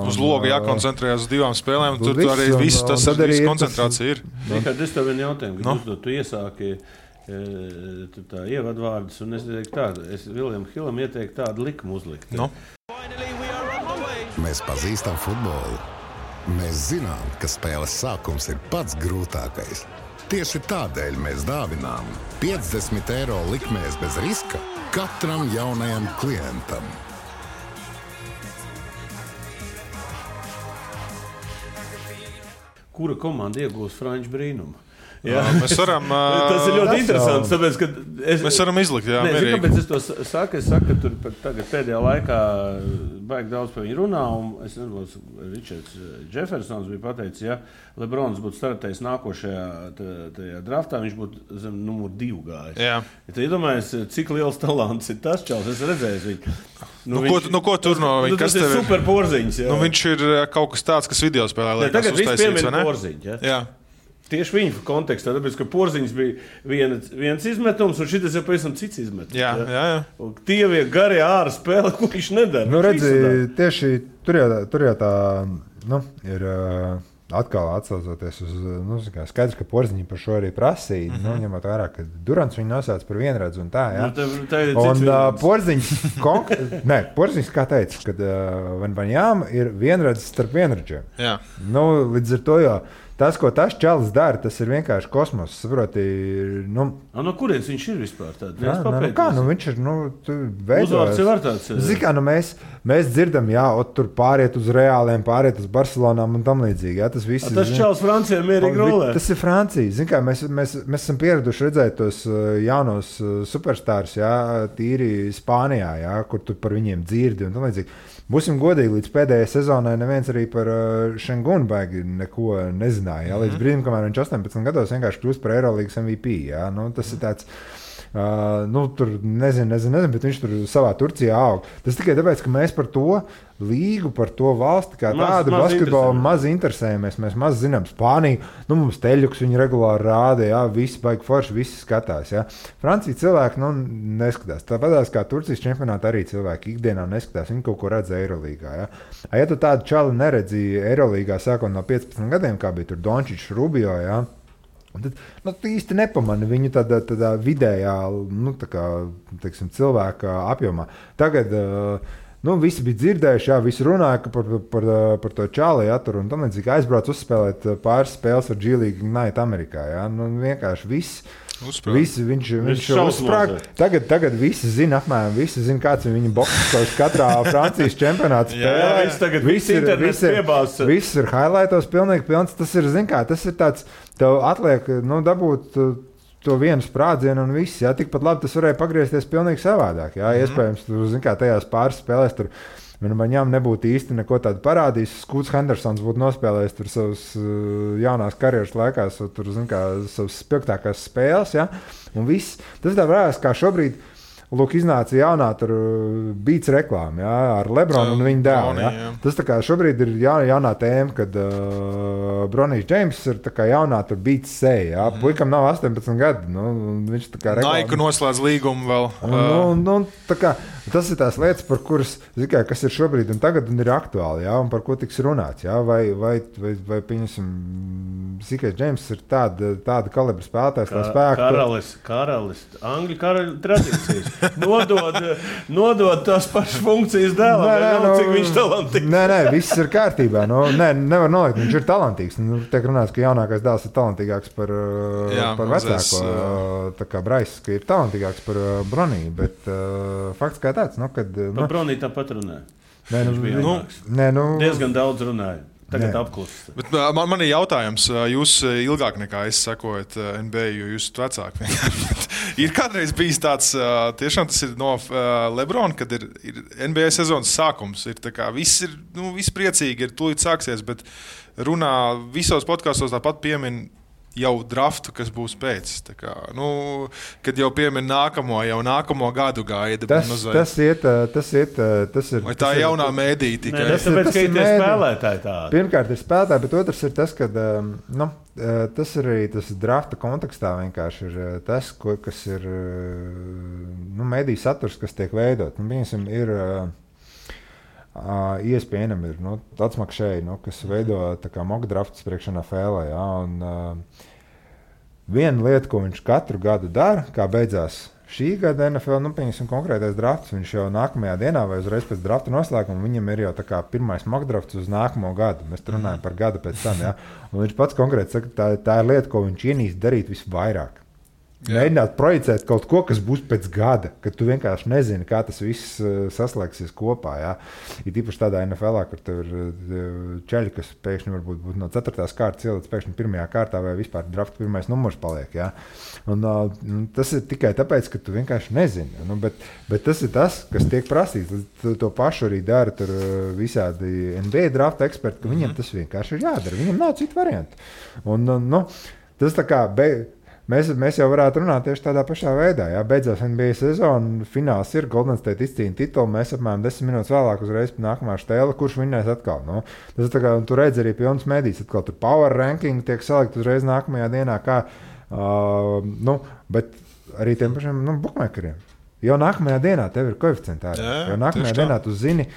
Uz loga jākoncentrējas uz 2 spēlēm, un tur arī viss tas koncentrācija ir.
Es tev vienu jautājumu, kad uzdot, tu iesāki tā ievadvārdus, un es teiktu tādu, es William Hillam ieteiktu tādu likumu uzlikt.
Mēs pazīstam futbolu. Mēs zinām, ka spēles sākums ir pats grūtākais. Tieši tādēļ mēs dāvinām 50 eiro likmēs bez riska katram jaunajam klientam.
Kura komanda iegūs Franču brīnumu?
Jā, mēs varam.
Tas ir ļoti interesants. Tāpēc,
mēs varam izlikt, jā.
Kāpēc es to saku? Es saku, ka tur tagad pēdējā laikā baigi daudz par viņu runā. Es nezinu, Ričards Džefersons bija pateicis, ja Lebrons būtu startējis nākošajā draftā, viņš būtu zem numur 2 gājis.
Jā.
Ja tu iedomājies, cik liels talants ir tas čals, es redzēju viņu.
Ko tur no viņa?
Tas ir super Porziņš.
Viņš ir kaut kas tāds, kas video spēlē liekas
tagad
uztaisīts,
viss piemina Porziņš.
Jā.
Tieši viņa kontekstā, tāpēc, ka Porziņš bija viens izmetums, un šis ir pavisam cits izmetums.
Jā.
Tie ir garie ārā spēle, ko viņš nedara.
Redzi, tieši tur jau tā ir atkal atsaucoties uz skaidrs, ka Porziņš par šo arī prasīja. Ņemot vērā, ka Durants viņu nosauc par vienredzu un tā. Jā. Un Porziņš, Porziņš kā teica, ka Vanjām ir vienredzes starp vienredzēm. Līdz ar to jau. Tas, ko tas čalis dara, tas ir vienkārši kosmos. Saproti,
no kurienes viņš ir vispār tāds?
Viņš ir
uzvārds jau ar tāds.
Zikā, mēs dzirdam, tur pāriet uz Reāliem, pāriet uz Barcelonām un tam līdzīgi. Jā, tas
čalis Francijā mierīgi rolē.
Tas ir Francija. Zikā, mēs esam pieraduši redzēt tos jaunos superstārus, tīri Spānijā, kur tu par viņiem dzirdi un tam līdzīgi. Būsim godīgi, līdz pēdējai sezonai neviens arī par Šengunu baigi neko nezināja. Līdz brīdim, kamēr viņš 18 gados vienkārši kļūst par Eirolīgas MVP. Tas ir tāds, tur nezinu, bet viņš tur savā Turcijā aug. Tas tikai tāpēc, ka mēs par to līgu, par to valsti kā tādu basketbolu maz interesējamies. Mēs maz zinām Spāniju. Mums teļuks viņi regulāri rāda, visi baigi forši, visi skatās. Francija cilvēki neskatās. Tāpēc kā Turcijas čempionātā arī cilvēki ikdienā neskatās. Viņi kaut ko redz Eirolīgā. Ja tu tādu čali neredzi Eirolīgā sākot no 15 gadiem, kā bija tur Dončičs, Rubio, tad īsti nepamani viņu tādā vidējā, teiksim, cilvēka apjomā. Tagad visi bija dzirdējuši, visi runāja par to čāli, tur un tam līdzīgi aizbrauc uzspēlēt pāris spēles ar G-League Ignite Amerikā. Vienkārši viss. Viņš uzsprāga. Tagad visi zina apmēram, visi zina, kāds ir viņa boks katrā Francijas čempionāta spēlē. Viss ir highlightos pilnīgi pilns. Tas ir, tas ir tāds, tev atliek, dabūt to vienu sprādzienu un viss. Tikpat labi tas varēja pagriezties pilnīgi savādāk. Iespējams, tajās pāris spēlēs tur viņam nebūtu īsti neko tādu parādījis. Skūts Hendersons būtu nospēlējis tur savas jaunās karjeras laikās, tur, savas spilgtākās spēles. Un viss. Tas tā varēs, kā šobrīd lūk, iznāca jaunā tur Beats reklāma, jā, ar Lebronu un viņa dēlu. Jā. Tas tā kā šobrīd ir jaunā tēma, kad Bronijs Džeims ir tā kā jaunā tur Beats seja. Puikam nav 18 gadi. Viņš tā kā reklāma.
Nike noslēdz līgumu vēl.
Tā kā, tas ir tās lietas, par kuras, kas ir šobrīd un tagad un ir aktuāli, jā, un par ko tiks runāts. Jā. Vai pieņemsim, Sikais Džeims ir tāda kalibra spēlētājs, tā spēka.
Karalis, Angļu karaļu tradīcijas. Nodod tās pašas funkcijas dēlam, cik viņš talantīgs.
Nē, viss ir kārtībā. Nevar nolikt, viņš ir talantīgs. Tiek runāts, ka jaunākais dēls ir talantīgāks par vecāko. Tā kā Brais, ka ir talantīgāks par Broniju, bet fakts kā tāds.
Par Broniju tāpat runāja. Diezgan daudz runāja. Tagad apklusis.
Man ir jautājums, jūs ilgāk nekā es sekojat NBA, jo jūs esat vecāki. Ir kādreiz bijis tāds, tiešām tas ir no Lebrona, kad ir NBA sezonas sākums. Ir tā kā viss ir, viss priecīgi, ir tūlīt sāksies, bet runā visos podkastos tāpat piemin jau draftu, kas būs pēc. Kā, kad jau piemin nākamo gadu gaida.
Tas ir.
Vai tā ir jaunā mēdīja tikai?
Tas tāpēc, ka ir spēlētāji tādi.
Pirmkārt ir spēlētāji, bet otrs ir tas, ka tas ir arī tas drafta kontekstā vienkārši ir tas, kas ir mēdīja saturs, kas tiek veidot. Ir ESPN ir atsmakšēji, kas veido mock drafts priekš NFL. Ja, viena lieta, ko viņš katru gadu dara, kā beidzās šī gada NFL, pieņemsim konkrētais drafts, viņš jau nākamajā dienā vai uzreiz pēc drafta noslēguma, viņam ir jau pirmais mock drafts uz nākamo gadu. Mēs runājam par gadu pēc tam. Ja, un viņš pats konkrēti saka, tā ir lieta, ko viņš ienīst darīt visvairāk. Mēģināt projicēt kaut ko, kas būs pēc gada, kad tu vienkārši nezini, kā tas viss saslēgsies kopā. Ja? Ir īpaši tādā NFL, kur tev ir čeļi, kas pēkšņi varbūt būtu no 4. kārtas ielicis pēkšņi 1. kārtā vai vispār drafta 1. numurs paliek. Ja? Un, tas ir tikai tāpēc, ka tu vienkārši nezini. Bet tas ir tas, kas tiek prasīts. To pašu arī dara visādi NBA drafta eksperti, ka viņiem tas vienkārši ir jādara. Viņiem nav citu variantu. Un, tas tā kā... Mēs jau varētu runāt tieši tādā pašā veidā. Jā, beidzās NBA sezona, fināls ir, Golden State izcīna titulu, mēs apmēram 10 minūtes vēlāk uzreiz pie nākamā štēla, kurš vinnēs atkal. Tas tā kā, tu redzi arī pilns medijas, atkal tur power ranking tiek salikt uzreiz nākamajā dienā, kā, bet arī tiem pašiem bookmakeriem. Jau nākamajā dienā tev ir koeficienti ārā. Jau nākamajā dienā tu zini,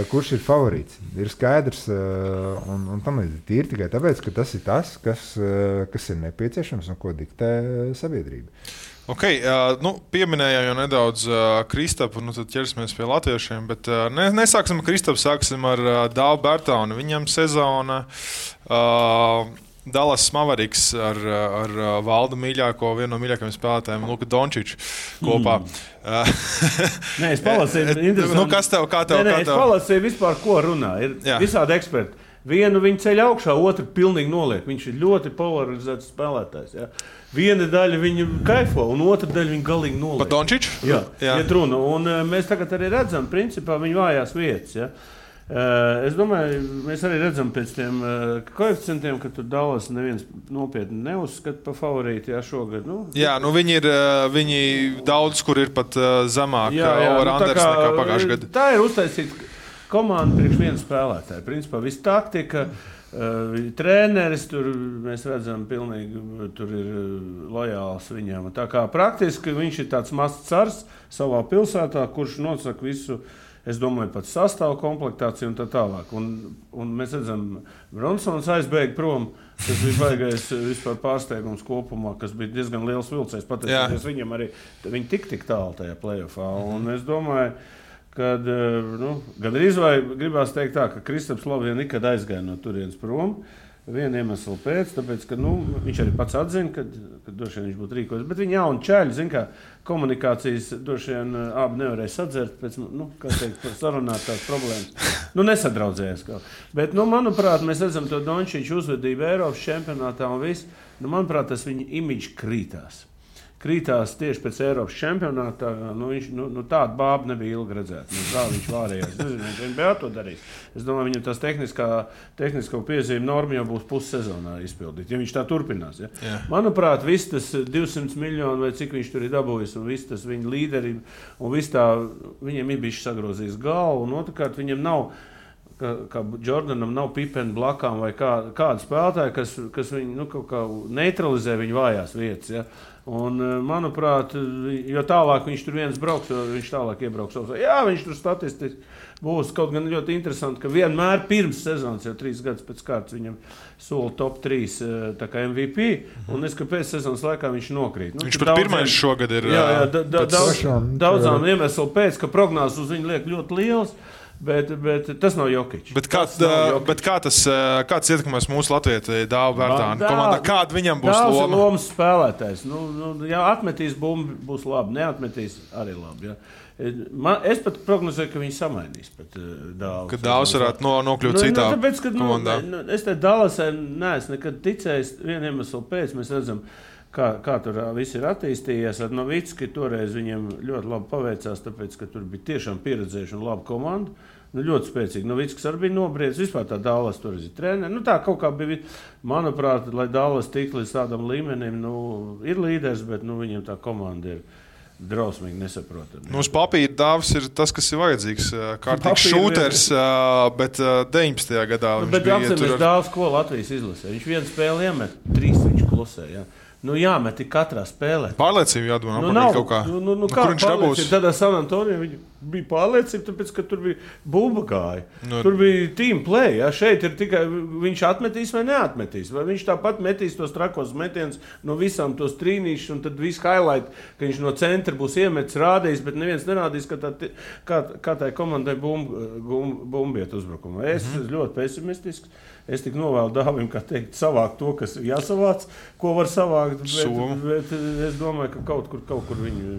kurš ir favorīts. Ir skaidrs, un tam ir tikai tāpēc, ka tas ir tas, kas ir nepieciešams un ko diktē sabiedrība.
Okay, pieminējām jau nedaudz Kristapu, tad ķersimies pie latviešiem, bet nesāksim ar Kristapu, sāksim ar Dāvu Bertaunu. Viņam sezona Dallas Mavericks ar Valdu mīļāko, vienu no mīļākajiem spēlētājiem, Luku Dončiču kopā.
Nē, es palasīju.
Kas tev, kā tev?
Es palasīju vispār, ko runā. Ir visādi eksperti. Vienu viņu ceļ augšā, otru pilnīgi noliek. Viņš ir ļoti polarizēts spēlētājs. Ja? Viena daļa viņu kaifo, un otra daļa viņu galīgi noliek.
Pa Dončiču?
Jā. Iet runa. Un mēs tagad arī redzam, principā, viņu vājās vietas. Ja? Es domāju, mēs arī redzam pēc tiem koeficientiem, ka tur Dallas neviens nopietni neuzskata par favorīti šogad.
Viņi daudz, kur ir pat zemāk over-unders nekā pagājušajā gadā.
Tā ir uztaisīta komanda priekš viena spēlētāja. Principā viss taktika, treneris, tur mēs redzam pilnīgi, tur ir lojāls viņam. Tā kā praktiski viņš ir tāds mazs cars savā pilsētā, kurš nosaka visu. Es domāju, pat sastāvu komplektāciju un tā tālāk. Un mēs redzam, Bronsons aizbēga prom. Tas bija baigais vispār pārsteigums kopumā, kas bija diezgan liels vilcējs. Pateicoties viņam arī, viņi tik tālu tajā playoffā. Un es domāju, ka gandrīz vai gribās teikt tā, ka Kristaps Lovien nekad aizgāja no turienes prom. Vienu iemeslu pēc, tāpēc, ka viņš arī pats atzina, ka droši vien viņš būtu rīkojis. Bet viņi jauni čaļi, zin kā, komunikācijas droši vien abi nevarēja sadzert pēc, kā teikt, sarunāt tās problēmas. Nesadraudzējās kaut. Bet, manuprāt, mēs redzam to Dončiču uzvedību Eiropas čempionātā un viss. Manuprāt, tas viņa imidžs krītās. krītās tieši pēc Eiropas čempionāta. Tāda bāba nebija ilgi redzēta. Kā viņš vārējās. Es nezinu, viņš NBA to darīs. Es domāju, viņam tās tehnisko piezīme norma jau būs pussezonā izpildīt, ja viņš tā turpinās. Ja? Yeah. Manuprāt, viss tas 200 miljoni vai cik viņš tur ir dabūjis, un viss tas viņa līderība, un viss tā, viņiem ir bišķi sagrozījis galvu, un otrkārt viņam nav, kā Jordanam nav Pipena blakām vai kāda spēlētāja, kas viņu kaut kā neutralizē viņa vājās vietas. Ja? Un, manuprāt, jo tālāk viņš tur viens brauks, jo viņš tālāk iebrauks. Jā, viņš tur statistiski būs kaut gan ļoti interesanti, ka vienmēr pirms sezonas, jau 3 gadus pēc kārtas, viņam sola top 3 tā kā MVP, un es, ka pēc sezonas laikā viņš nokrīt.
Viņš pat pirmais šogad ir...
Jā, daudzām iemeslu pēc, ka prognozes uz viņu liek ļoti liels, bet tas nav Jokić.
Bet kāds ietekmēs mūsu Latviju Dāvu Bērtānu komandā? Kāda viņam būs loma?
Dāvs ir lomas spēlētājs. Ja atmetīs bumbu, būs labi. Neatmetīs arī labi. Ja. Es pat prognozēju, ka viņi samainīs Dāvu.
Ka Dāvs varētu nokļūt citā komandā.
Es te Dallasai neesmu nekad ticējis vienu iemeslu pēc. Mēs redzam, kā tur viss ir attīstījies. Ar Novicki toreiz viņiem ļoti labi paveicās, tāpēc, ka tur bija tiešām pieredzējuši un laba komanda. Ļoti spēcīgi. Novickis arī bija nobriedis. Vispār tā Dallas tur ir treneri. Tā kaut kā bija, manuprāt, lai Dallas tiktu līdz tādam līmenim, ir līderis, bet viņiem tā komanda ir drausmīgi nesaprotami.
Uz papīra Dāvs ir tas, kas ir vajadzīgs. Kārtīgs šūters, bet 19. gadā viņš bija
tur. Bet Dāvs, ko Latvijas izlasē? Viņš vienu spēli iemet, 3 viņš klusē. Ja? Jāmet katrā spēlē.
Pārliecība jādod kaut kā.
Kā pārliecība? Tādā San Antonio viņa bija pārliecība, tāpēc, ka tur bija bumba gāja. Tur bija team play. Ja? Šeit ir tikai viņš atmetīs vai neatmetīs. Vai viņš tāpat metīs tos trakos metienus no visām tos trīnīšus, un tad viss highlight, ka viņš no centra būs iemetis, rādījis, bet neviens nerādīs, kā tai komandai bumbiet uzbrukumā. Es ļoti pesimistisks. Es tik novēlu Dāvim, kā teikt, savākt to, kas jāsavāc, ko var savākt, bet es domāju, ka kaut kur viņu...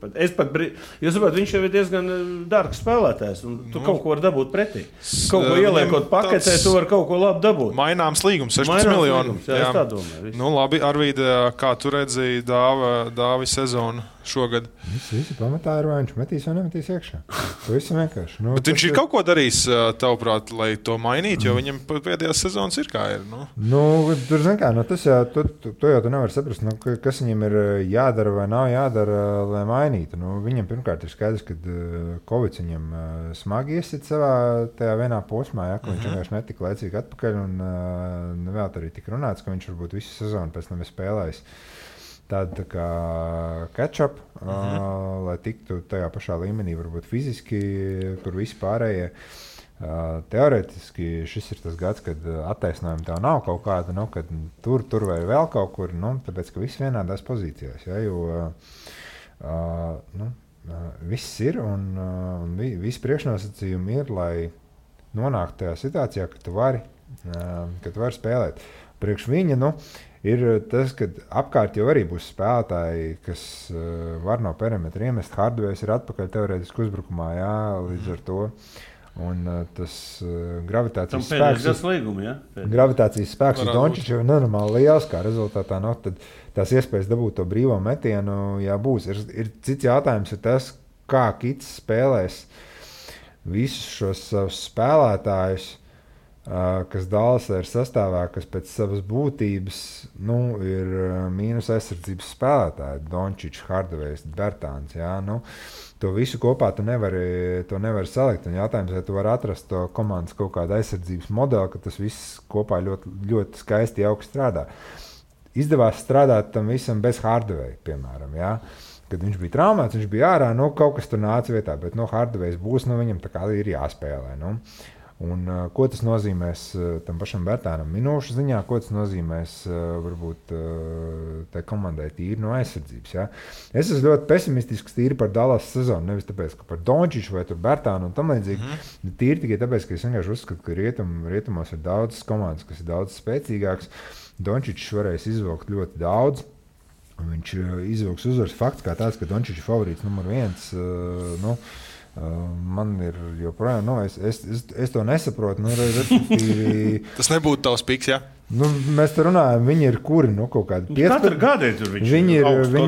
Jūs saprotat, viņš jau ir diezgan dārgs spēlētājs, un tu kaut ko var dabūt pretī. Kaut ko ieliekot paketē, tu var kaut ko labi dabūt.
Maināms līgums, 16 miljoni.
Jā, es tā domāju.
Labi, Arvīda, kā tu redzēji Dāvi sezonu šogad?
Visi pamatā ir, vai viņš metīs vai nemetīs iekšā. Pavisam vienkārši.
Bet viņš ir kaut ko darījis, tavuprāt, lai to mainītu, jo viņam pēdējās sezonas ir kā ir.
Tur, zin kā, tas jau, to jau tu nevar saprast, kas viņam ir jādara vai nav jādara, lai mainītu. Viņam pirmkārt ir skaidrs, ka Covid viņam smagi iesit savā tajā vienā posmā, ja, ka viņš vienkārši netika laicīgi atpakaļ, un vēl arī tika runāts, ka viņš varbūt visu sezonu pēc tam ir spēlējis tādu tā kā catch-up, lai tiktu tajā pašā līmenī, varbūt fiziski, kur visi pārējie. Teorētiski šis ir tas gads, kad attaisnojumi tev nav kaut kāda, kad tur vai vēl kaut kur, tāpēc, ka viss vienādās pozīcijās, ja, jo viss ir un visi priekšnosacījumi ir, lai nonāktu tajā situācijā, ka tu vari spēlēt. Priekš viņa, ir tas, ka apkārt jau arī būs spēlētāji, kas var no perimetra iemest. Hardways ir atpakaļ teorētiski uzbrukumā, jā, līdz ar to. Un tas gravitācijas spēks uz Dončiču ir nenormāli liels, kā rezultātā, tad tās iespējas dabūt to brīvo metienu, jā, būs. Ir cits jautājums ir tas, kā Kits spēlēs visus šos savus spēlētājus, kas Dallasā ir sastāvā, kas pēc savas būtības ir mīnus aizsardzības spēlētāji, Dončičs, Hardways, Bertāns. Jā, to visu kopā tu nevari salikt. Un jautājums, vai tu vari atrast to komandas kaut kādu aizsardzības modeli, ka tas viss kopā ļoti, ļoti skaisti jauki strādā. Izdevās strādāt tam visam bez Hardway, piemēram. Jā. Kad viņš bija traumēts, viņš bija ārā, kaut kas tur nāca vietā, bet Hardways būs, viņam tā kā ir jāspēlē. Un, ko tas nozīmēs tam pašam Bertānam minūšu ziņā, ko tas nozīmēs varbūt tai komandai tīri no aizsardzības. Ja? Es esmu ļoti pesimistisks tīri par Dallas sezonu, nevis tāpēc, ka par Dončiču vai Bertānu un tam līdzīgi. Tīri tikai tāpēc, ka es vienkārši uzskatu, ka rietumos ir daudzas komandas, kas ir daudz spēcīgāks. Dončičs varēs izvilkt ļoti daudz. Viņš izvilks uzvaras fakts kā tāds, ka Dončičs ir favorīts numur 1. Man ir joprojām, es to nesaprotu.
Tas nebūtu tavs piks, jā?
Nu, mēs te runājam, viņi ir kuri, kaut kādi 15.
Katru gadu tur
viņi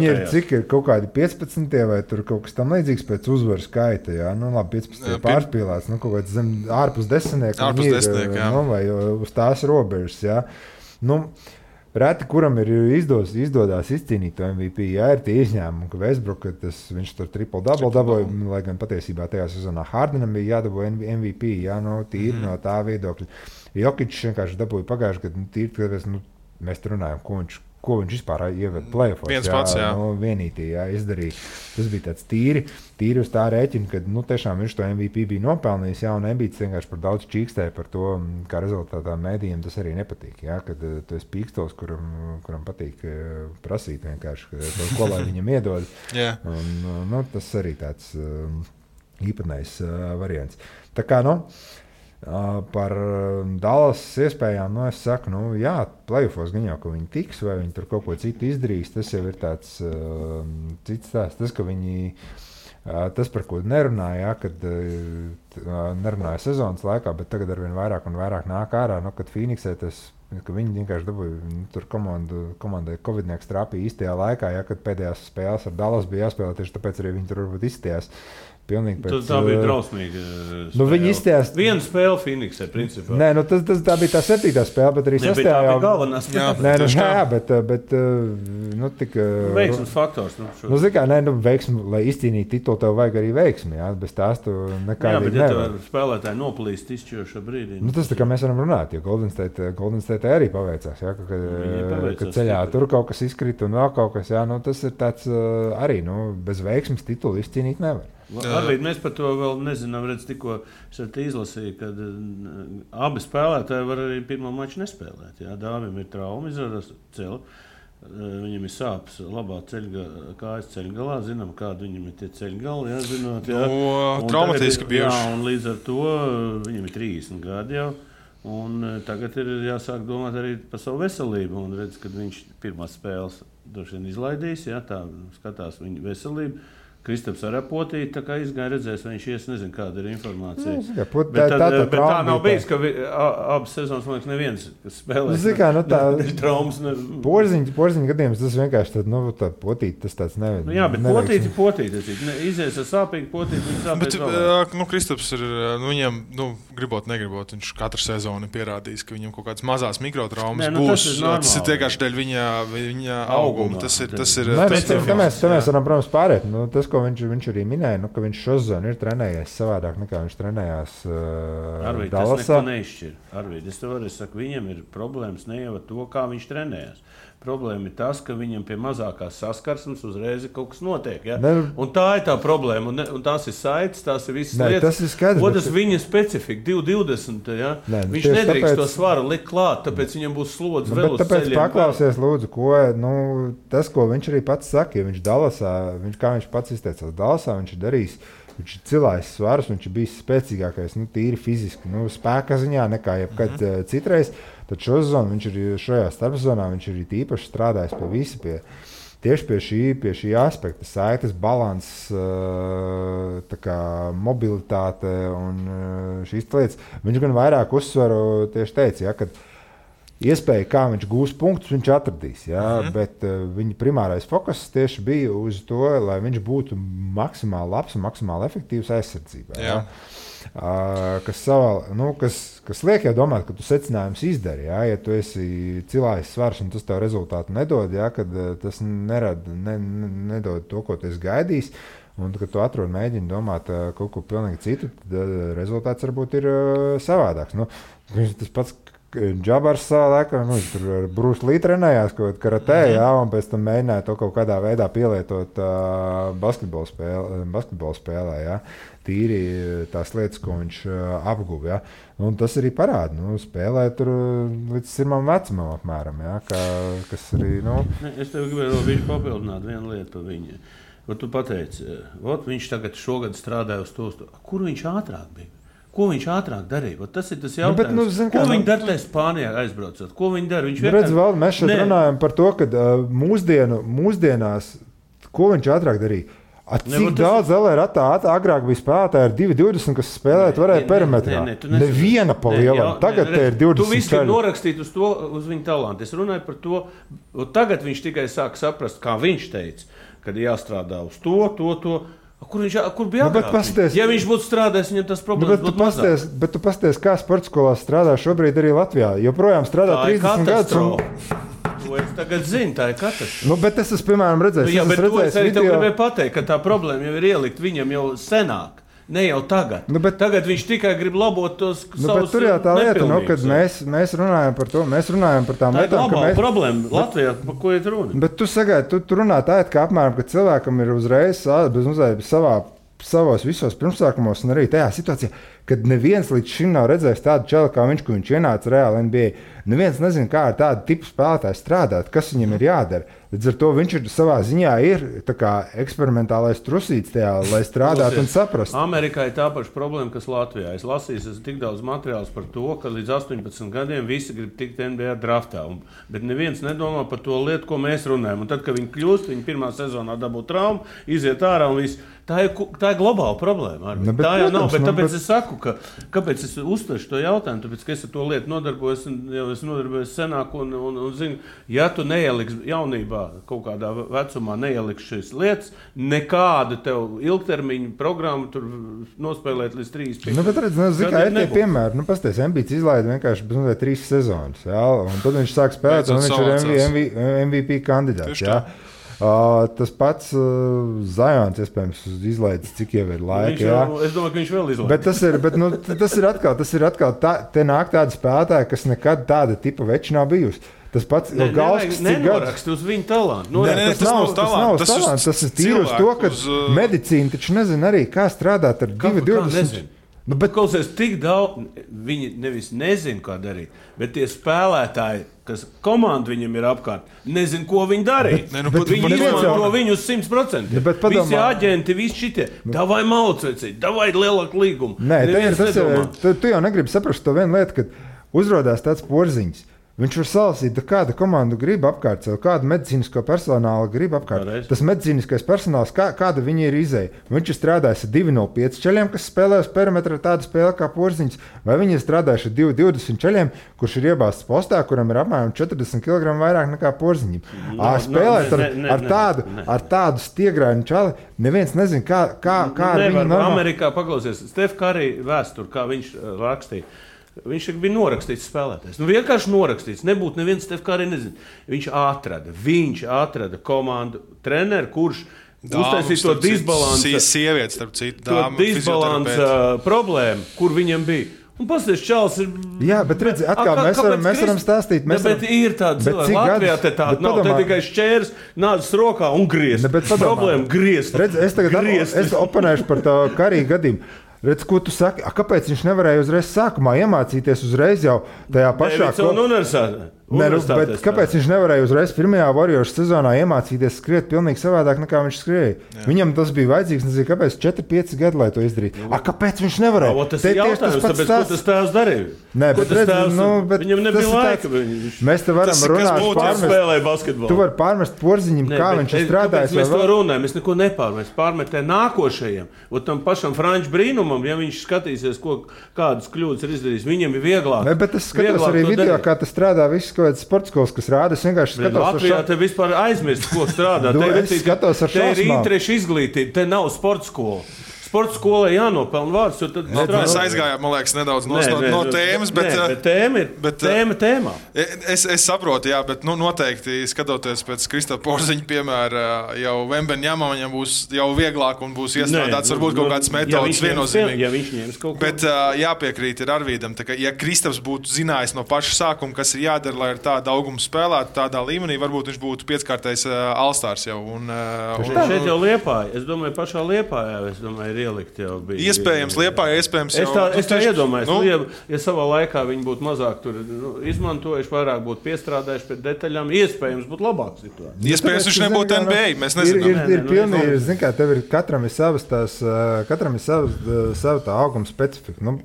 ir cik ir kaut kādi 15. vai tur kaut kas tam līdzīgs pēc uzvaru skaita, jā. Nu, labi, 15. pārspīlēts, ārpus 10.
Jā.
Vai uz tās robežas, jā. Nu, reti, kuram ir izdodās izcīnīt to MVP, jā, ir tie izņēmumi, ka Westbrook, viņš tur triple-double dabūja, lai gan patiesībā tajā sezonā Hardenam bija jādabūja MVP, jā, tīri no tā viedokļa. Jokičs vienkārši dabūja pagājuši, kad tīri, kad mēs runājam, ko viņš vispār ieved play-offos.
Viens pats, jā.
Vienītī, jā, izdarīja. Tas bija tāds tīri uz tā rēķina, kad, tiešām viņš to MVP bija nopelnījis, jā, un Embiids vienkārši par daudz čīkstēja par to, kā rezultātā mēdījiem tas arī nepatīk, jā, kad tu esi pīkstols, kuram patīk prasīt vienkārši, ko lai viņam iedod.
Yeah.
Un, tas arī tāds īpatnējs variants. Tā kā, par Dallas iespējām, es saku, jā, play-offos gan jau, ka viņi tiks, vai viņi tur kaut ko citu izdarīs, tas jau ir tāds cits tās, tas, ka viņi, tas, par ko nerunāja, kad nerunāja sezonas laikā, bet tagad arvien vairāk un vairāk nāk ārā, kad Phoenixē tas, ka viņi vienkārši dabūja, tur komandai Covidnieks trāpīja īstajā laikā, kad pēdējās spēles ar Dallas bija jāspēlē, tieši tāpēc arī viņi tur varbūt izstījās. Pilnīgi pēc... Tā
bija drausmīga spēle.
Viņi izstājās...
Viena spēle Phoenixē, principā.
Nē, tā bija tā 7. spēle, bet arī 6.
Tā bija galvenā spēle.
Bet tik...
Veiksmes faktors.
Veiksmi, lai izcīnītu titulu, tev vajag arī veiksmi, jā, bez tās tu nekādīgi nevar.
Jā, bet ja spēlētāji noplīst izšķirošā brīdī.
Tas tā kā mēs varam runāt, jo Golden State arī paveicās, jā, ka ceļā tur kaut kas izkrita un vēl kaut kas, jā, tas ir tāds arī, bez veiksmes titulu izcīnīt nevar.
Arvīd, mēs par to vēl nezinām, tikko es izlasīju, ka abi spēlētāji var arī pirmo maču nespēlēt. Jā, Dāvim ir trauma, izrādās ceļa, viņam ir sāpes labā kājas ceļgalā, zinām, kāda viņam ir tie ceļgali, jā, zinot. Jā.
Traumatiski bijuši.
Jā, un līdz ar to viņam ir 30 gadi jau, un tagad ir jāsāk domāt arī par savu veselību, un redz, kad viņš pirmās spēles droši vien izlaidīs, jā, tā skatās viņa veselību. Kristaps arī potīja, tā kā izgāja redzēs, viņš nezinu, kāda ir informācija. Bet tā nav bijis, ka abas sezonas, man liekas, neviens, kas spēlē traumas.
Porziņa gadījums, tas vienkārši tā potīt, tas tāds nevajag.
Jā, bet potīt. Izies ar sāpīgu potīt, viņš sāpēs
vēl. Kristaps ir, viņam, negribot, viņš katru sezonu pierādījis, ka viņam kaut kādas mazās mikrotraumas būs. Tas ir vienkārši dēļ viņa auguma. Tas ir.
Mēs varam, protams, pārēt. Tas, ko viņš arī minēja, ka viņš šo sezonu ir trenējies savādāk nekā viņš trenējās Dallasā.
Tas neko neizšķir. Arvīd, es tev arī saku, viņam ir problēmas ne jau ar to, kā viņš trenējās. Problēma ir tas, ka viņam pie mazākās saskarsmes uzreiz kaut kas notiek. Ja? Un tā ir tā problēma. Un tās ir saites, tās ir visas lietas.
Tas ir skaidrs.
Otrs viņa specifika, 220. Ja? Viņš nedrīkst to svaru likt klāt, tāpēc viņam būs slodzi vēl uz ceļiem.
Tāpēc paklausies, lūdzu, tas, ko viņš arī pats saka, ja viņš Dallasā, kā viņš pats izteicās, Dallasā viņš ir darījis, viņš ir cilājis svarus, viņš ir bijis spēcīgākais, tīri fiziski, spēka ziņā nekā jebkad citreiz. Tad šo sezonu viņš ir šajā starpsezonā, viņš ir īpaši strādājis tieši pie šī aspekta, saites, balans, mobilitāte un šīs lietas. Viņš gan vairāk uzsvaru tieši teica, kad iespēja, kā viņš gūs punktus, viņš atradīs. Jā, bet viņa primārais fokus tieši bija uz to, lai viņš būtu maksimāli labs un maksimāli efektīvs aizsardzībā. Jā. Kas liek jau domāt, ka tu secinājums izdari. Jā, ja tu esi cilājis svars un tas tev rezultātu nedod, jā, kad tas nedod to, ko tu esi gaidījis, un kad tu atrod mēģini domāt kaut ko pilnīgi citu, tad rezultāts varbūt ir savādāks. Tas pats Džabars savā laikā, tur ar Bruce Lee trenējās kaut kādā karatē, jā, un pēc tam mēģināja to kaut kādā veidā pielietot basketbola spēlē, jā. Tīri tās lietas, ko viņš apguva, jā. Un tas arī parāda, spēlē tur līdz sirmam vecumam apmēram, jā, kas arī,
Es tev gribēju vēl papildināt vienu lietu par viņu. Tu pateici, viņš tagad šogad strādāja uz to, kur viņš ātrāk bija? Ko viņš ātrāk darīja? Tas ir tas jautājums. Ko viņi dara tajā Spānijā aizbraucot? Ko viņi dara?
Mēs šeit runājam par to, ka mūsdienās, ko viņš ātrāk darīja? Cik daudz LRAtā agrāk bija spēlētāji ar 2,20, kas spēlēt varēja perimetrā? Neviena pa lielam. Tagad te ir 20.
Tu visu ir norakstīt uz viņa talantu. Es runāju par to, tagad viņš tikai sāk saprast, kā viņš teica, kad jāstrādā uz to. Kur bija agrāk? Ja viņš būtu strādājis, viņam tas problēmas būtu mazāk.
Bet tu pasties, kā sporta skolās strādā šobrīd arī Latvijā. Joprojām strādā 30 gadus.
Es tagad zinu, tā ir katastrofa.
Bet es esmu, piemēram, redzējis.
Jā, bet to es arī tev gribēju pateikt, ka tā problēma jau ir ielikt viņam jau senāk. Ne jau tagad. Tagad viņš tikai grib labot tos savus nepilnības.
Bet tur jau tā lieta, kad mēs runājam par to, mēs runājam par tām lietām.
Tā ir globāla problēma Latvijā, par ko ir runa.
Bet tu sagaidi, tu runā tā, ka apmēram, ka cilvēkam ir uzreiz savos visos pirmsākumos un arī tajā situācijā, kad neviens līdz šim nav redzējis tādu čelu kā viņš, ko viņš ienāca reāli NBA. Neviens nezina, kā ar tādu tipu spēlētāju strādāt, kas viņam ir jādara. Līdz ar to viņš ir savā ziņā eksperimentālais trusīts tajā, lai strādātu un saprastu.
Amerikā ir tā paša problēma, kas Latvijā. Es lasīju tik daudz materiālus par to, ka līdz 18 gadiem visi grib tikt NBA draftā. Bet neviens nedomā par to lietu, ko mēs runājam. Un tad, kad viņi kļūst, viņi pirmā sezonā dabū traumu, iziet ārā un viss. Tā ir globāla problēma. Tā jau nav, bet tāpēc es saku, kāpēc es uztveru to jautājumu, tāpēc, ka es ar to lietu nodarbojos, jau es nodarbojos senāk un zinu, ja tu neieliksi jaunībā, kaut kādā vecumā neieliksi šīs lietas, nekādu tev ilgtermiņu programmu tur nospēlēt līdz 3-5.
Bet redz, kā ir tie piemēri, pasties, Embiids izlaida vienkārši 3 sezonas, jā, un tad viņš sāk spēlēt, un viņš ir MVP kandidāts, jā. Tas pats Zajons, iespējams, izlaidis, cik jau ir laika.
Es domāju, ka viņš vēl izlaidis.
Bet tas ir atkal te nāk tāda spēlētāja, kas nekad tāda tipa veči nav bijusi. Tas pats Galskis
nenorakst uz viņu talantu.
Tas nav talants. Tas ir tīri uz to, ka medicīna taču nezina arī, kā strādāt ar 2,20.
Bet klausies, tik daudz, viņi nevis nezina, kā darīt, bet tie spēlētāji, kas komanda viņam ir apkārt, nezina, ko viņi darīt. Viņi izmanto viņu uz 100%. Visi aģenti, visi šitie, davai malcvecīt, davai lielāku līgumu.
Tu jau negribi saprast to vienu lietu, kad uzrodās tāds porziņš. Viņš var salasīt, kāda komanda grib apkārt sev, kādu medicīnisko personālu grib apkārt.
Pareiz.
Tas medicīniskais personāls, kāda viņi ir izēja. Viņš ir strādājis ar 2,05 ceļiem, kas spēlē uz perimetra tādu spēli kā porziņš, vai viņi ir strādājuši ar 2,20 ceļiem, kurš ir iebāzts postā, kuram ir apmēram 40 kg vairāk nekā porziņam. Spēlēt ar tādu stiegrainu čali, neviens nezina, kā ar viņu normāli.
Amerikā paklausies, Steph Curry vēsturi, kā viņš rakstīja. Viņš bija norakstīts spēlētājs. Vienkārši norakstīts. Nebūtu neviens Steph Curry nezina. Viņš atrada komandu treneru, kurš uztaisīja to disbalansu.
Sievietes, starp citu,
dāmu. To disbalansu problēmu, kur viņam bija. Un pasties, Čāls ir...
Jā, bet redzi, atkal mēs varam stāstīt.
Bet ir tāda cilvēka. Latvijā te tāda nav. Te tikai šķērs, nādas rokā un griezt. Problēma griezt.
Redzi, es oponēšu par tā Curry gadījumu. Redz, ko tu saki? Kāpēc viņš nevarēja uzreiz sākumā iemācīties uzreiz jau tajā pašā... Bet kāpēc viņš nevarēja uzreiz pirmajā Warriors sezonā iemācīties skriet pilnīgi savādāk nekā viņš skrēja? Viņam tas bija vajadzīgs, nezinu, kāpēc 4-5 gadi, lai to izdarītu. Kāpēc viņš nevarēja?
Tas ir jautājums, tāpēc, ko tas tēvs darīja?
Nē, bet
viņam nebija laika.
Mēs te varam runāt Tu vari pārmest porziņam, kā viņš ir strādājis.
Mēs to runājam, mēs neko nepārmest. Pārmetē nākošajiem. Tam pašam Franču brīnumam, ja viņš skatīsies, kādas kļūdas ir izdarījis, viņam ir vieglāk.
Bet es skatos arī video, kā tas strādā viss. Kaut kāds sports skolas, kas rāda, es vienkārši skatos
Latvijā te vispār aizmirst, ko strādā. Te ir interešu izglītība, te nav sports skola. Sports skolai jānopelna vārds, jo tad
mēs aizgājām, man liekas, nedaudz no tēmas, bet
tēmā.
Es saprotu, jā, bet noteikti skatoties pēc Kristofa Porziņa piemēra, jau Vembeņamam viņam būs jau vieglāk un būs iestrādāts varbūt kaut kādas metodas viennozīmīgi.
Ja viņš ņems kaut ko.
Bet jāpiekrīt ir Arvīdam, ka ja Kristofs būtu zinājis no paša sākuma, kas ir jādara, lai ar tādu augumu spēlētu tādā līmenī, varbūt viņš būtu pieckārtais All-Stars jau.
Šeit jau Liepāja, es domāju, pašā Liepājā, ir ielikt jau bija.
Iespējams, Liepāja, iespējams jau.
Es tā iedomājos, ja savā laikā viņi būtu mazāk tur izmantojuši, vairāk būtu piestrādājuši pie detaļām, iespējams būtu labāk situācija.
Iespējams, viņš nebūtu NBA, mēs nezinām.
Ir pilnīgi, zin kā, tev ir katram ir sava tā auguma specifika. Nu,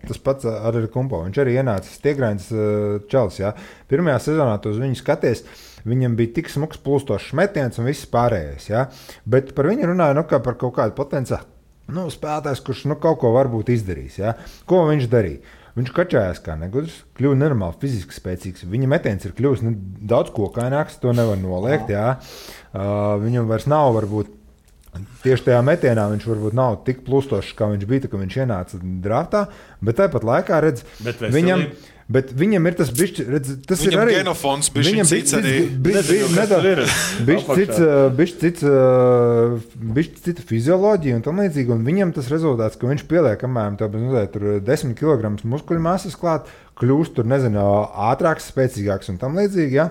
tas pats arī Kumpo, viņš arī ienācis Tiegrains čalis, jā. Pirmajā sezonā tu uz viņu skaties, viņam bija tik smuks plūstošs metiens un viss pārējais, jā. Bet par viņu runāja, kā par kaut kādu potenciālu spēlētājs, kurš kaut ko varbūt izdarīs, jā. Ko viņš darīja? Viņš kačājās kā negudrs, kļuva nenormāli fiziski spēcīgs. Viņa metiens ir kļuvis daudz kokaināks, to nevar noliegt, jā. Viņam vairs nav varbūt tieši tajā metienā viņš varbūt nav tik plūstošs, kā viņš bija, kad viņš ienāca draftā, bet tāpat laikā redz, viņam ir tas bišķi, redz, tas
viņam
ir arī
genofons, bišķi cits arī.
Bišķi cita fizioloģija un tam līdzīgi, un viņam tas rezultāts, ka viņš pieliek, kamēr tur 10 kg muskuļu masas klāt, kļūst tur, nezinu, ātrāks, spēcīgāks un tam līdzīgi, ja?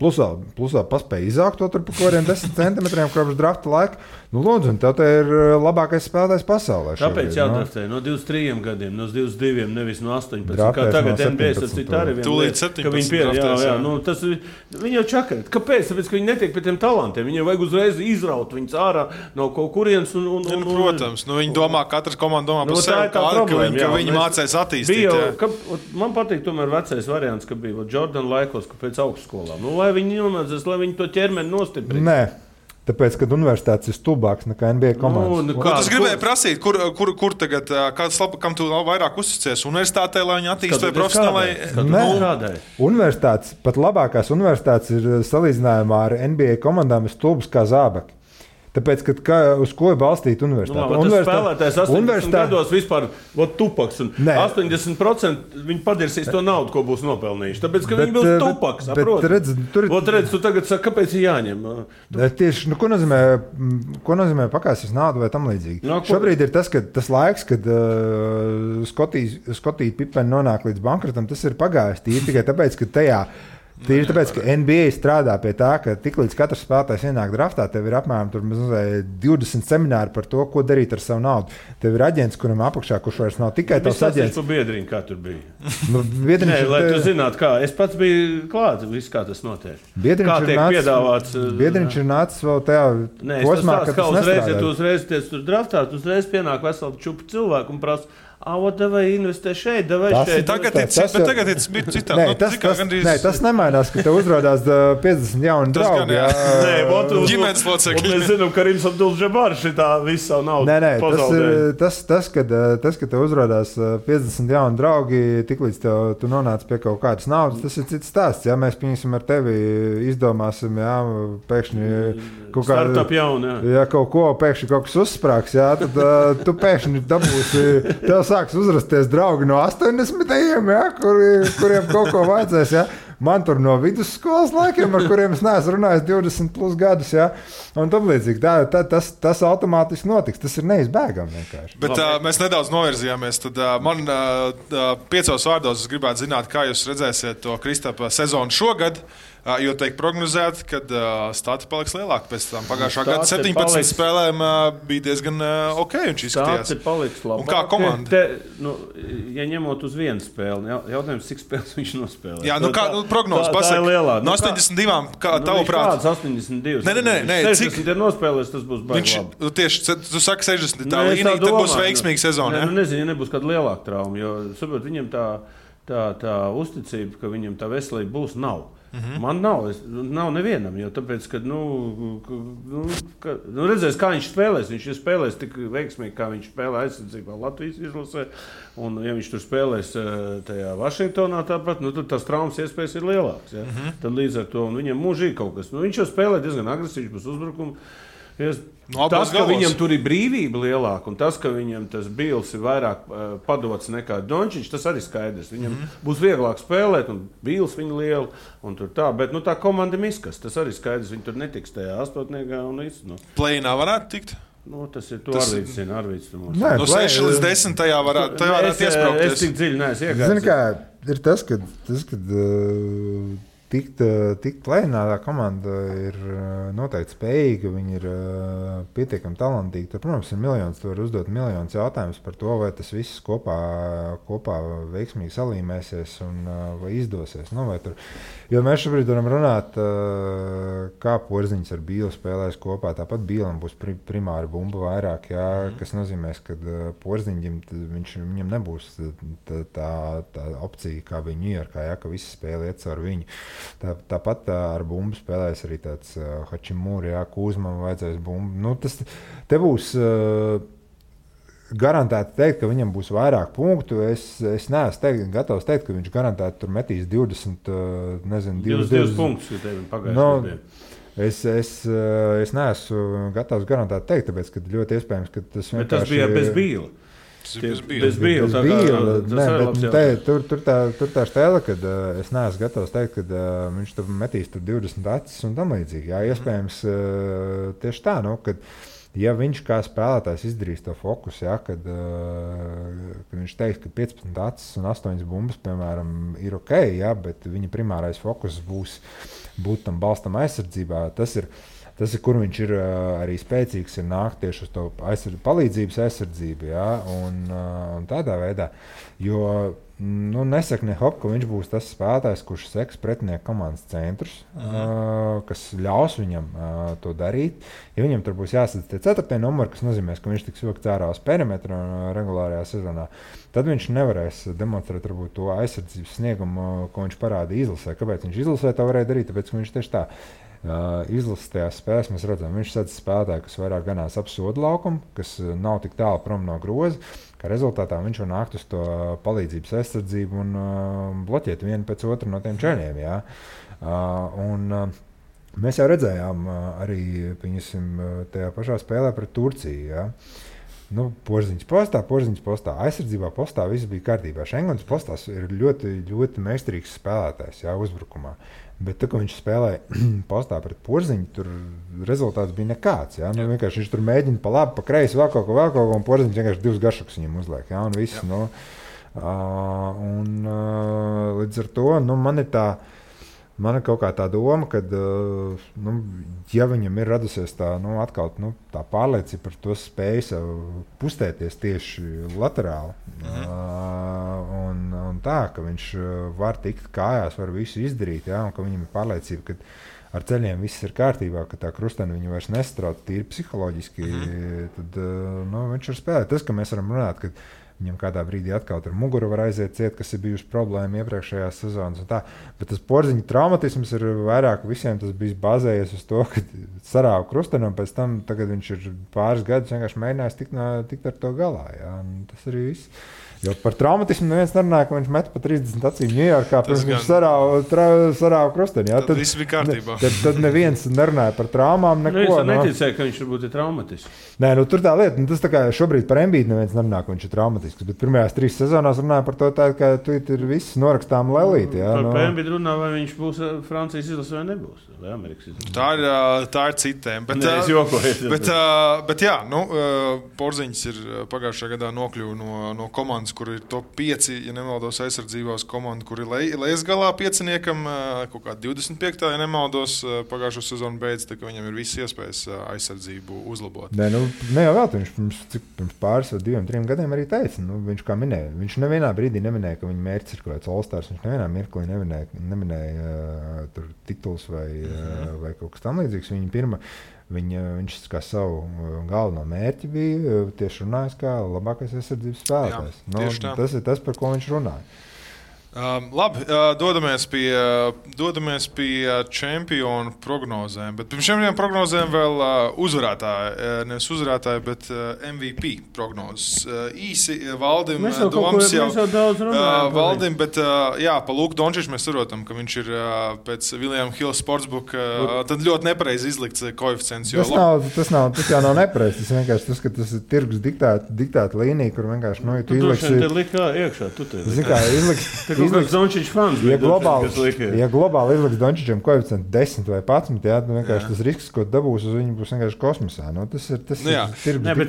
Plus vēl paspēja izaugt to tur pa kādiem 10 centimetriem kopš drafta laika. Nu, lūdzu, un tev te ir labākais spēlētājs pasaulē.
Kāpēc jādraftē? No 23 gadiem, no 22, nevis no 18. Kā tagad NBA ar citu arī vienu
lietu, ka viņi
draftēs. Nu, tas, viņi jau čakarēt. Kāpēc? Tāpēc, ka viņi netiek pie tiem talantiem. Viņiem vajag uzreiz izraut viņus ārā no kaut kurienes.
Protams, viņi domā, katrs komanda domā par sevi, ka viņi mācēs attīstīt.
Man patīk tomēr vecais variants, ka bija Jordan laikos, ka pēc augstskolām. Lai viņi nomācās, lai viņi to ķermeni nostiprina.
Nē, tāpēc, kad universitātes ir stulbāks nekā NBA komandas.
Ko tas gribēja prasīt? Kur tagad, kam tu vairāk uzticies? Universitātē, lai viņi attīst vai profesionālai?
Nē, universitātes, pat labākās universitātes ir salīdzinājumā ar NBA komandām ir stulbas kā zābaki. Tāpēc, uz ko ir balstīta universitāte?
Tas spēlētājs 80 gados vispār tupaks. 80% viņi padirsīs to naudu, ko būs nopelnījuši. Tāpēc, ka viņi būs tupaks. Redz, tu tagad saki, kāpēc ir jāņem?
Tieši, ko nozīmē pakāsies naudu vai tam līdzīgi? Šobrīd ir tas laiks, kad Skotija Pipeni nonāk līdz bankrotam, tas ir pagājis tīri tikai tāpēc, ka tajā Tīri tāpēc, ka NBA strādā pie tā, ka tiklīdz katrs spēlētājs ienāk draftā, tev ir apmēram 20 semināri par to, ko darīt ar savu naudu. Tev ir aģents, kuram apakšā, kurš vairs nav tikai tavs aģents.
Tu biedriņ, kā tur bija. Lai tu zinātu, kā. Es pats biju klāt, viss kā tas notiek. Kā tiek piedāvāts.
Biedriņš ir nācis vēl tajā posmā, ka tas nestrādā.
Ja tu uzreiz tiec tur draftā, tu uzreiz pienāk veselu čupu cilvēku un prasa, vai investē šeit, vai šeit.
Tagad ir citādi.
Tas nemainās, ka tev uzrādās 50 jauni draugi.
Ģimenes locekļi.
Mēs zinām, ka Rims Abdul-Džabārs šitā visu savu naudu pazaudēja.
Tas, ka tev uzrādās 50 jauni draugi, tiklīdz tu nonāc pie kaut kādas naudas, tas ir cits stāsts. Ja mēs pieņemsim ar tevi, izdomāsim, pēkšņi kaut kādu
startup jaunu.
Ja kaut ko pēkšņi kaut kas uzsprāgs, tad tu pēkšņi dabūsi. Sāks uzrasties draugi no 80-ajiem, kuriem kaut ko vajadzēs. Ja? Man tur no vidusskolas laikiem, ar kuriem es neesmu runājis 20 plus gadus. Ja? Un tam līdzīgi. Tas automātiski notiks. Tas ir neizbēgami vienkārši.
Bet mēs nedaudz novirzījāmies. Tad man 5 vārdos es gribētu zināt, kā jūs redzēsiet to Kristapa sezonu šogad. Jo tiek prognozēts, ka stati paliks lielāki pēc tam. Pagājušā gada 17 spēlēm bija diezgan ok. Viņš izskatījās.
Stati paliks labāk.
Un kā komanda?
Ja ņemot uz vienu spēli, jautājums, cik spēles viņš nospēlē.
Jā, prognozes pasaka. No 82, kā tavuprāt?
Kāds 82?
Nē.
60 ir nospēlēs, tas būs baigi labi.
Tieši, tu saki 60, tā līnija, tad būs veiksmīga sezona.
Nezinu, ja nebūs kāda lielāka trauma, jo, saprot, viņam tā uzticība, ka viņam tā veselība būs, nav. Man nav nevienam, jo tāpēc, ka, redzēs, kā viņš spēlēs. Viņš ir spēlējis tik veiksmīgi, kā viņš spēlē aizsardzībā Latvijas izlasē. Un, ja viņš tur spēlēs tajā Vašingtonā tāpat, tad tās traumas iespējas ir lielākas. Ja? Tad līdz ar to viņam mūžīgi kaut kas. Viņš jau spēlē diezgan agresīvs būs uzbrukumu. Tas, ka viņam tur ir brīvība lielāka un tas, ka viņam tas Bīls ir vairāk padots nekā Dončiņš, tas arī skaidrs. Viņam būs vieglāk spēlēt un Bīls viņu lielu un tur tā. Bet tā komanda miskas, tas arī skaidrs. Viņi tur netiks tajā astotniekā un visu.
Play-inā varētu tikt?
Tas ir to Arvīds zina.
No 6 līdz 10 tajā varētu iespraukties.
Es tik dziļi neesmu iegājis.
Zini kā, ir tas, kad tikt lēnā, tā komanda ir noteikti spējīga, viņi ir pietiekami talantīgi. Tur, protams, ir miljons, tu vari uzdot miljonus jautājumus par to, vai tas viss kopā veiksmīgi salīmēsies un vai izdosies. Nu, vai tur, jo mēs šobrīd varam runāt, kā Porziņš ar Bīlu spēlēs kopā. Tāpat Bīlam būs primāri bumba vairāk, jā, kas nozīmēs, ka Porziņam viņam nebūs tā opcija, kā bija Ņujorkā, jā, ka visi spēle iet caur viņu. Tāpat ar bumbu spēlēs arī tāds Hačimūri, jā, Kūzmam vajadzēs bumbu. Nu, te būs garantēti teikt, ka viņam būs vairāk punktu. Es neesmu gatavs teikt, ka viņš garantēti tur metīs 20
punktus, ja tevi pagājušajā.
Es neesmu gatavs garantēt teikt, tāpēc, ka ļoti iespējams, ka tas vienkārši...
Bet tas bija bez Bīla.
Bez Bīla.
Tur tā stēle, kad es neesmu gatavs teikt, ka viņš tur metīs tur 20 acis un tam līdzīgi. Jā, iespējams tieši tā, nu, kad ja viņš kā spēlētājs izdarīs to fokusu, ja, kad viņš teiks, ka 15 acis un 8 bumbas, piemēram, ir ok, ja, bet viņa primārais fokus būt tam balstam aizsardzībā, tas ir, kur viņš ir arī spēcīgs, ir nākt tieši uz to palīdzības aizsardzību, ja, un tādā veidā, jo nesaka ne hop, ka viņš būs tas spēlētājs, kurš seks pretinieku komandas centrus, kas ļaus viņam to darīt. Ja viņam tur būs jāsadz tie 4. numuri, kas nozīmēs, ka viņš tiks vilkts ārā uz perimetru regulārajā sezonā, tad viņš nevarēs demonstrēt varbūt to aizsardzības sniegumu, ko viņš parāda izlasē. Kāpēc viņš izlasē to varēja darīt? Tāpēc, ka viņš tieši tā izlases tajās spēlēs mēs redzam, viņš sadz spēlētāju, kas vairāk ganās ap sodu laukumu, kas nav tik tālu prom no groza, kā rezultātā viņš var nākt uz to palīdzības aizsardzību un bloķēt vienu pēc otru no tiem čaļiem. Ja? Mēs jau redzējām arī tajā pašā spēlē pret Turciju. Ja? Nu, Porziņš postā, aizsardzībā postā viss bija kārtībā. Šengons postās ir ļoti, ļoti meistarīgs spēlētājs, jā, uzbrukumā. Bet tā, kad viņš spēlēja postā pret Porziņu, tur rezultāts bija nekāds. Ja? Nu, vienkārši viņš tur mēģina pa labi, pa kreisi, vēl kaut ko, un Porziņš vienkārši 2 garšukus viņam uzliek. Ja? Un viss, nu, līdz ar to, nu, man ir kaut kā tā doma, ka, ja viņam ir radusies tā, atkal, tā pārliecība par to spēju pustēties tieši laterāli, un tā, ka viņš var tikt kājās, var visu izdarīt, ja, un ka viņam ir pārliecība, ka ar ceļiem viss ir kārtībā, ka tā krusteni viņu vairs nestrauc tīri psiholoģiski, tad viņš var spēlēt. Tas, ka mēs varam runāt, ka viņam kādā brīdī atkal ar muguru var aiziet ciet, kas ir bijusi problēma iepriekšējās sezonas. Bet tas Porziņa traumatisms ir vairāk visiem tas bijis bazējies uz to, ka sarāva krusteni, un pēc tam tagad viņš ir pāris gadus vienkārši mēģinājis tikt ar to galā. Jā. Tas arī viss. Jo par traumatismu neviens nerunāja, ka viņš met pa 30 acīm Ņujorkā, pirms viņš sarāva krusteni.
Tad viss bija kārtībā.
Tad neviens nerunāja par traumām, neko.
Es neticēju, ka viņš varbūt ir traumatisks.
Nē, tur tā lieta, tas tā kā šobrīd par Embiidu neviens nerunā, ka viņš ir traumatisks, bet pirmajās 3 sezonās runāja par to tā, ka tu ir viss norakstām lelīti.
Par Embiidu runā, vai viņš būs Francijas izlase vai nebūs, vai Amerikas izlase.
Tā ir citiem.
Es jokoju.
Bet jā, Porziņš ir pagājušajā gadā nokļuva no komandas, kur ir top 5, ja nemaldos, aizsardzībās komanda, kur ir lejas galā pieciniekam, kaut kā 25. ja nemaldos, pagājušo sezonu beidz, tā ka viņam ir visas iespējas aizsardzību uzlabot.
Ne jau vēl, viņš pirms pāris vai 2-3 gadiem arī teica, viņš kā minēja, viņš nevienā brīdī neminēja, ka viņa mērķis ir kaut kāds All-Stars, viņš nevienā mirklī neminēja tur tituls vai kaut kas tam līdzīgs. Viņš kā savu galveno mērķi bija tieši runājis kā labākais aizsardzības spēlētājs. Tas ir tas, par ko viņš runāja.
Labi, dodamies pie čempionu prognozēm, bet pirms šiem prognozēm vēl nevis uzvarētāji, bet MVP prognozes. Īsi Valdim, domas jau Valdim, bet pa Luku Dončiču mēs saprotam, ka viņš ir pēc William Hill Sportsbook tad ļoti nepareizi izlikts koeficients.
Tas jau nav nepareizi, tas vienkārši tas, ka tas ir tirgus diktēta līnija, kur vienkārši,
tu izliksi... Te likā iekšā, tu te likā.
izliks
Dončičs fans.
Ja globāli izliks Dončičam koeficientu 10 vai 11, jā, nu vienkārši tas risks, ko dabūs uz viņu, būs vienkārši kosmosā. Nu, tas ir
Nē, bet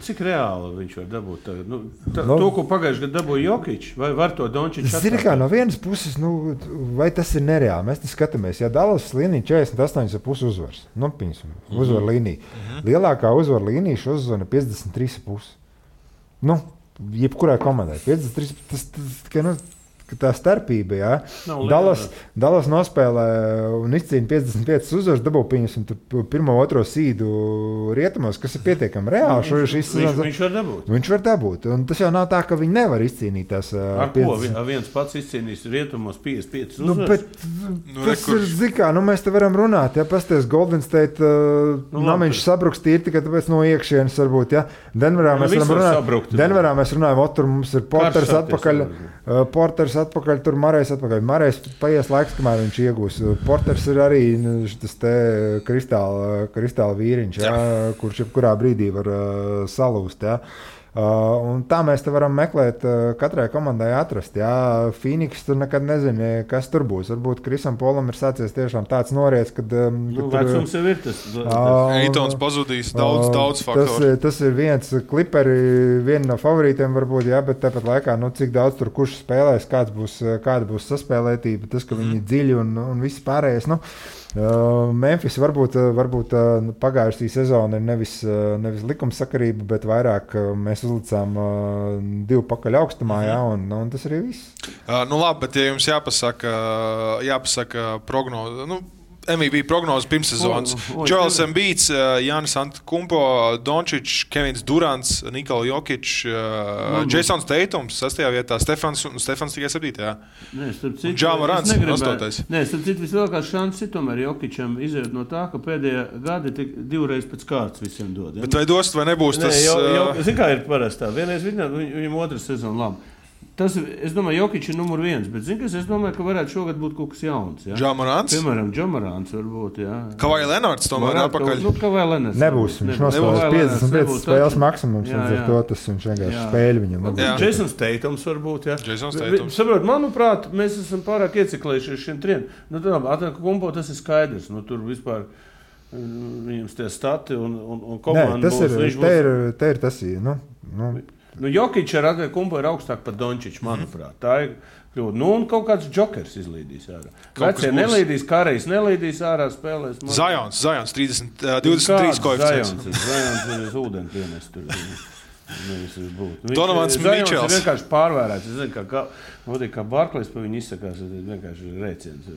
cik reāli viņš var dabūt tagad? To, ko pagājuši gadu dabūja Jokič, vai var to Dončičs atkārtot?
Zini kā, no vienas puses, vai tas ir nereāli? Mēs te skatāmies, ja Dallas līnija 48,5 uzvaras, uzvar līnija. Lielākā uzvar līnija šo sezonu 53,5. Jebkurai komandai. 53, tā starpība, jā. Dallas nospēlē un izcīna 55 uzvaras, dabū pieņemsim pirmo, otro sīdu rietumos, kas ir pietiekami reāli.
Viņš var dabūt.
Viņš var dabūt. Un tas jau nav tā, ka viņi nevar izcīnīt tās
50. Ko? Viens pats izcīnīs rietumos 55 uzvaras?
Tas ir zikā, mēs te varam runāt, ja pasties Golden State, viņš sabruks tīri tikai tāpēc no iekšienes varbūt, ja. Denverā mēs runājam, tur mums ir Porters atpakaļ. Atpakaļ, tur Marejs atpakaļ. Marejs paies laiks, kamēr viņš iegūs. Porters ir arī tas te kristāla vīriņš, jā, kurš jebkurā brīdī var salūst. Jā. Un tā mēs te varam meklēt, katrai komandai atrast. Jā. Phoenix tur nekad nezini, kas tur būs. Varbūt Krisam Polam ir sācies tiešām tāds noriets, kad
vecums jau ir tas.
Eitons pazudīs daudz faktoru.
Tas ir viens Clipperi, viena no favorītiem varbūt, jā, bet tāpat laikā, cik daudz tur kurš spēlēs, kāda būs saspēlētība, tas, ka viņi dziļi un viss pārējais, Memphis varbūt pagājušā sezona ir nevis likumsakarība, bet vairāk mēs uzlicām 2 pakaļ augstumā, jā, un tas arī viss.
Labi, bet ja jums jāpasaka prognoze, MVP prognoze pirmssezonas. Joels Embiids, Jānis Antetokounmpo, Dončičs, Kevins Durants, Nikola Jokič, Jasons Tatums 6. vietā, Stefans tikai 7. Ja Morants 8.
Nē, starp citu vislielākās šanses tomēr Jokičam iziet no tā, ka pēdējā gadi tik 2 reizes pēc kārtas visiem dod. Ja?
Bet vai dos, vai nebūs tas?
Zin kā ir parastā, vienreiz viņam otras sezona labi. Es domāju, Jokič ir numur 1, bet es domāju, ka varētu šogad būt kaut kas jauns. Ja?
Ja Morants?
Piemēram, Ja Morants varbūt, jā.
Kawhi Leonards tomēr atpakaļ.
Kawhi Leonards.
Nebūs, viņš nospēlēs 55 spēles maksimums, un ar to tas viņš vienkārši spēļ viņam.
Jasons Tatums varbūt, jā.
Jasons Tatums.
Saprot, manuprāt, mēs esam pārāk ieciklējušies šiem triem. Antetokounmpo tas ir skaidrs, tur vispār viņam tie stati un komanda būs.
Te ir tas,
Jokič ar Antetokounmpo ir augstāk par Dončiču, manuprāt. Tā ir kļūda. Un kaut kāds džokers izlīdīs ārā. Vecie nelīdīs, Karejs nelīdīs ārā, spēlēs.
Zajons 23 koeficients.
Zajons ir ūdeni pienest tur.
Donovans Mičels.
Viņš ir vienkārši pārvērēts. Es zinu, kā Barklejs pa viņu izsakās, vienkārši rēciens.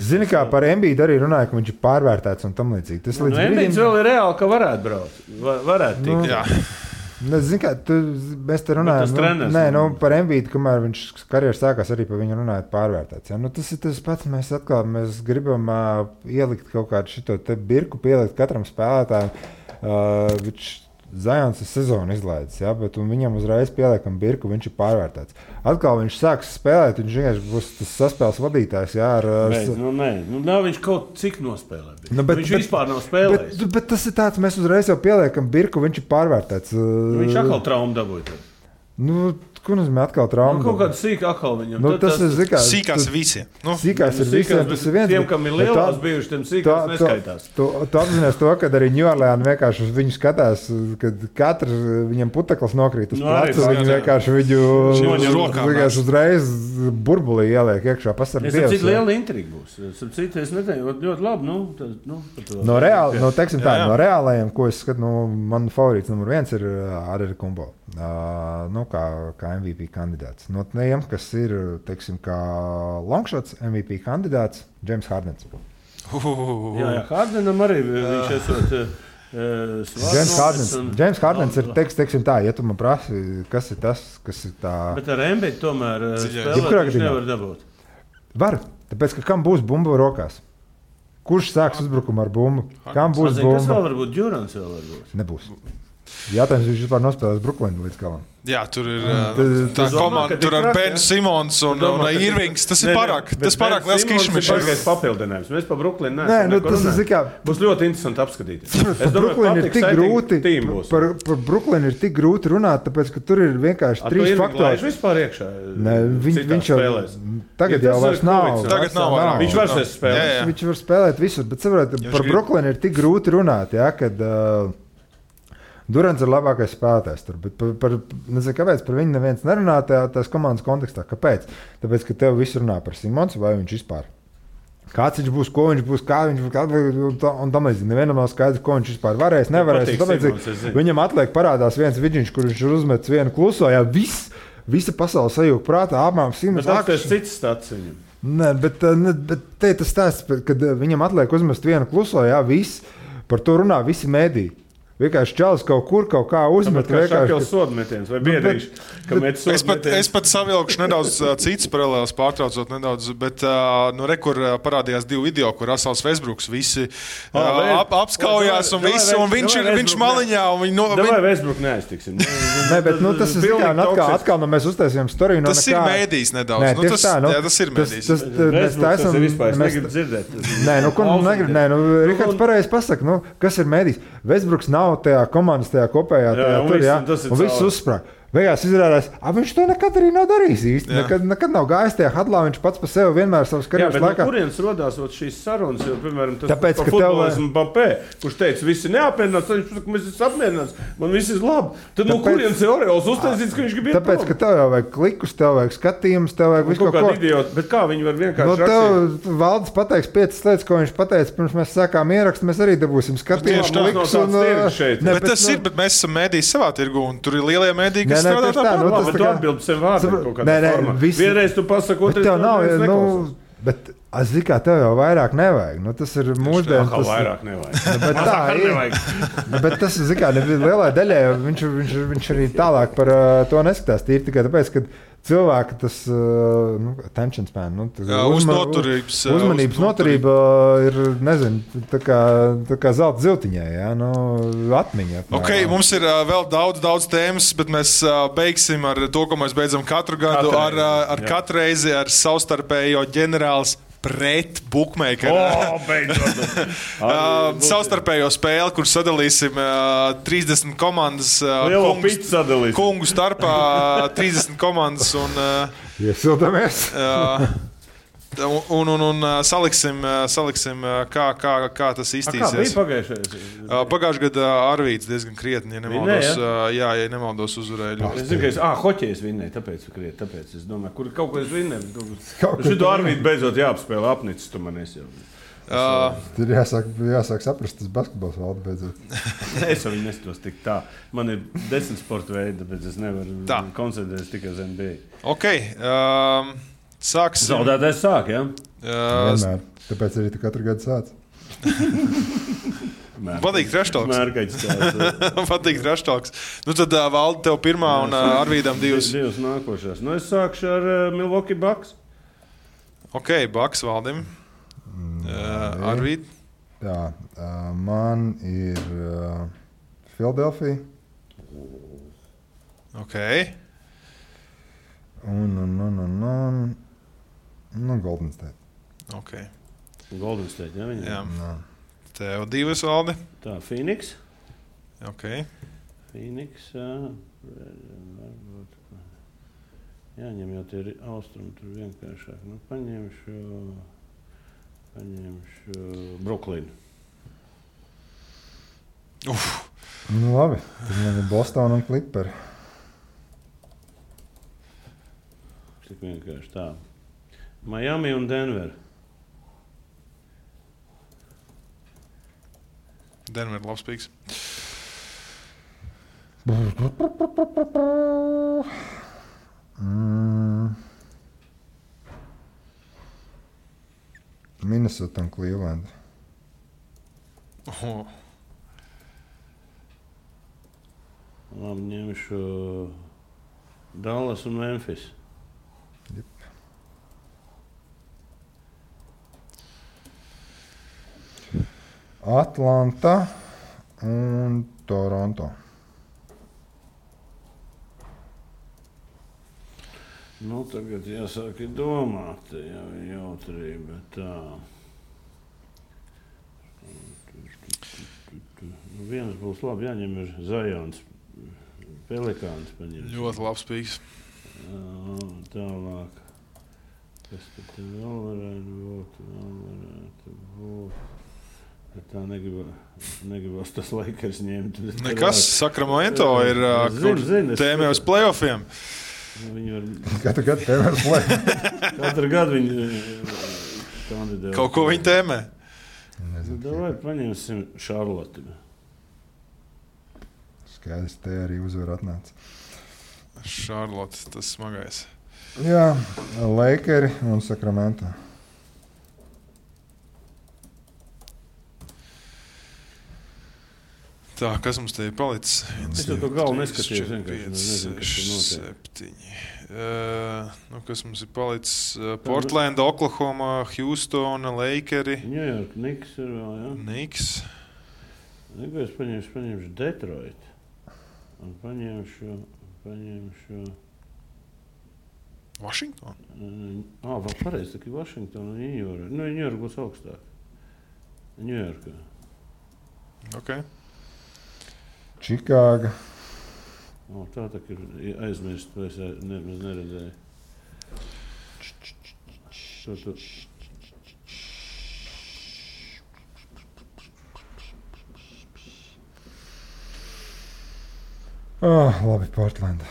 Zini, kā par Embiidu arī runāja, ka viņš ir pārvērtēts un tam līdzīgi.
Embiids vēl ir reāli, ka varētu braukt. Varētu tikt.
Jā.
Zini, kā, mēs te runājam par Embiidu, kamēr viņš karjeras sākās arī par viņu runājot pārvērtēts. Ja? Tas ir tas pats, mēs gribam ielikt kaut kādu šito te birku, pielikt katram spēlētājam. Zajons ir sezonu izlaidis, ja? Bet viņam uzreiz pieliekam birku, viņš ir pārvērtēts. Atkal viņš sāks spēlēt, viņš vienkārši būs tas saspēles vadītājs. Jā,
nav viņš kaut cik nospēlē. Viņš vispār nav spēlējis.
Bet tas ir tāds, mēs uzreiz jau pieliekam birku, viņš ir pārvērtēts.
Viņš atkal traumu dabūja.
Ko nozīmē atkal trauma?
Kaut kāda sīka atkal viņam.
Tas ir
sīkās visiem.
Sīkās ir visiem, tas ir viens.
Tiem, kam ir lielās bijuši, tiem sīkās neskaitās.
Tu apzinies to, kad arī New Orleans vienkārši uz viņu skatās, kad katrs viņam puteklis nokrīt uz placu, viņi vienkārši viņu uzreiz burbulī ieliek iekšā. Pasarg Dievs.
Es cik liela intriga būs. Es neteicu, ļoti labi.
No reālajiem, ko es skatu, man favorīts numur 1 ir Antetokounmpo. Kā MVP kandidāts. No tiem, kas ir, teiksim, kā longshots MVP kandidāts, James Hardens.
Jā, Hardenam arī viņš esot
James Hardens ir, teiksim tā, ja tu man prasi, kas ir tas, kas ir tā...
Bet ar Embiid tomēr spēlēt viņš nevar dabūt.
Var, tāpēc, ka kam būs bumba rokās? Kurš sāks uzbrukumu ar bumbu? Kam būs bumba?
Kas vēl var būt? Durants vēl var būt?
Nebūs. Jātājums, viņš vispār nospēlēs Brooklynu līdz galam.
Jā, tur ir tā komanda, tur ar Ben Simons un Irvings. Tas ir pārāk liels kišmišs.
Tas ir papildinājums. Mēs pa Brooklynu neesam. Būs ļoti interesanti apskatīties. Es domāju,
par Brooklynu ir tik grūti runāt, tāpēc, ka tur ir vienkārši 3 faktori.
Viņš vispār iekšā.
Viņš jau tagad jau vairs nav.
Tagad nav.
Viņš vairs spēlēt.
Viņš var spēlēt visur, bet saprotiet, par Brooklynu ir tik grūti runāt, kad Durants ir labākais spēlētājs tur, bet nezinu, kāpēc par viņu neviens nerunā tās komandas kontekstā. Kāpēc? Tāpēc, ka tev viss runā par Simons, vai viņš vispār. Kāds viņš būs, ko viņš būs, kā viņš būs, un tam līdzīgi. Nevienam nav skaidrs, ko viņš vispār varēs, nevarēs. Viņam atliek parādās viens vidžiņš, kur viņš uzmets vienu kluso, visa pasaule sajūg prātā, apmēram Simons.
Bet tas ir cits stats viņam.
Nē, bet te tas stāsts, kad viņam atliek uzmest vienu kluso, viss, par to runā visi mēdī. Vienkārši čalis kaut kā uzmet.
Kā šakels sodmetiens vai biedrīši, ka met sodmetiens.
Es pat savilkšu nedaudz cits paralēlis, pārtraucot nedaudz, bet kur parādījās 2 video, kur Russells Westbrooks visi apskaujās un viss, un viņš maliņā.
Davai Westbrook neaiztiksim.
Nē, bet tas ir atkal, mēs uztaisījām storiju.
Tas ir mēdīs nedaudz. Tas ir mēdīs.
Westbrooks tas ir vispār, es negribu dzirdēt.
Rihards pareizi pasaka, kas ir mēdīs. Westbrooks nav tajā komandas, tajā kopējā tur, un viss uzsprāg. Beigās izrādās, viņš to nekad arī nav darījis īsti. Nekad nav gājis tajā hadlā, viņš pats par sevi vienmēr savas karjeras laikā.
No kurienes rodās šīs sarunas, jo, piemēram, tas par futbolismu Mbappé, kurš teica, visi neapmierināts, viņš saka, mēs esam apmierināts, man viss ir labi. Tad no kurienes ir Oreols uztaisīts, ka viņš grib iet
tāpēc, ka tev jau vajag klikus, tev vajag skatījumus, tev vajag visu kaut ko.
Idioti, bet kā viņi var vienkārši rakstīt?
Tev Valdis pateiks 5 lietas, ko viņš pateica, pirms mēs sākām ierakstu, mēs arī dabūsim skatījumus, klikus un...
Bet tas ir, bet mēs esam mēdīs savā tirgu, un tur ir lielie mēdī, kas strādā
tā. Bet tu atbildi sev vārdiem kaut kādā formā. Vienreiz tu pasaki, otrais neviens neklausās.
Bet es zinu, kā tev jau vairāk nevajag. Tas ir mūsdienas.
Tas vairāk nevajag.
Bet tā ir. Bet tas, zinu, kā lielai daļai, viņš arī tālāk par to neskatās. Tīri tikai tāpēc, ka cilvēki tas attention span, uzmanības noturība ir, nezinu, tā kā zelta ziltiņai, atmiņa.
Ok, mums ir vēl daudz tēmas, bet mēs beigsim ar to, ko mēs beidzam katru gadu, ar katru reizi ar savstarpējo ģenerāls pret bookmakeru. Savstarpējo spēli, kur sadalīsim 30 komandas kungu starpā 30 komandas un
iesildamies.
Un saliksim kā tas iztīsies.
Kā bija pagājušajā?
Pagājušajā gadā Arvīds diezgan krietni, ja nemaldos uzvarēja.
Es zinu, ka hoķejs vinnēja, tāpēc es domāju, kur kaut ko es vinnēju. Šito Arvīdu beidzot jāapspēlē apnicis, tu man esi jau.
Tur jāsāk saprast, tas basketbols valda beidzot.
Es jau viņu nestos tik tā. Man ir 10 sporta veidi, tāpēc es nevaru koncentrēties tikai uz NBA.
Ok, sāksim.
Zaudētājs sāk, jā?
Vienmēr. Tāpēc arī tu katru gadu sāc.
Patīk treštalks. Patīk treštalks. Tad Valdi tev pirmā un Arvīdam 2.
2 nākošās. Es sākšu ar Milwaukee Bucks.
Ok, Bucks Valdim. Arvīd.
Jā, man ir Philadelphia.
Ok.
Un Golden State.
Ok.
Golden State, jā, viņa?
Jā. Tev 2, Valdi.
Tā, Phoenix.
Ok.
Phoenix, jāņem jau tie austrumi tur vienkāršāk. Paņemšu Brooklynu.
Labi, tad man ir Boston un Clipperi.
Tik vienkārši tā. Miami un Denver.
Denver labs pīks. Minnesota un Cleveland.
Labi, ņemšu Dallas un Memphis.
Atlanta un Toronto.
Nu, tagad jāsāk domāt, jau jautrība tā. Viens būs labi, jāņem ir Zajons, Pelikāns paņems.
Ļoti labs pīks.
Tālāk. Kas tad vēl varētu būt? Tā negribas tas Lakers ņemt.
Nekas, Sacramento ir tēmē uz playoffiem.
Katru gadu tēmē uz playoffiem.
Katru gadu viņi kandidē.
Kaut ko viņi tēmē.
Davai paņemsim Šarloti.
Skaidrs, te arī uzvar atnāca.
Šarlote, tas smagais.
Jā, Lakeri un Sacramento.
Tā, kas mums te ir palicis?
Es jau to galvu neskatījos.
7. Kas mums ir palicis? Portland, Oklahoma, Houston, Lakeri.
New York, Knicks ir vēl, jā?
Knicks.
Es paņemšu Detroit. Un paņemšu
Washington?
Vēl pareizi, tā ir Washington un New York. New York būs augstāk. New York.
Ok.
Čikāga.
Tā ir aizmirst, to es nemaz neredzēju.
Labi, Portland.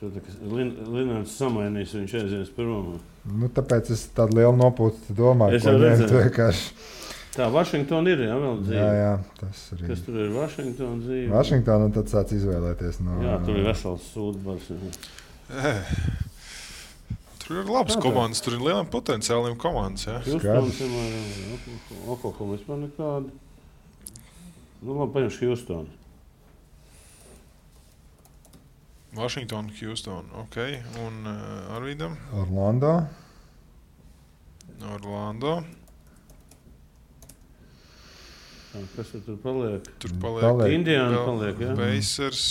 Linārds samainīs, viņš aizies prom.
Nu, tāpēc es tādu lielu nopūtu domāju, ko ņemt vienkārši.
Tā, Vašingtona ir, jā, vēl dzīve.
Jā, tas arī.
Kas tur ir Vašingtona dzīve?
Vašingtona, un tad sāc izvēlēties no...
Jā, tur ir vesels sūdbars.
Tur ir labas komandas, tur ir lieliem potenciāliem komandas, jā.
Houstons, Oklahoma vispār nekāda. Nu, labi, paņemšu Houstonu.
Washington, Houston, ok. Un Arvīdam?
Orlando.
Kas tur paliek?
Tur paliek
Indiana paliek, jā?
Pacers.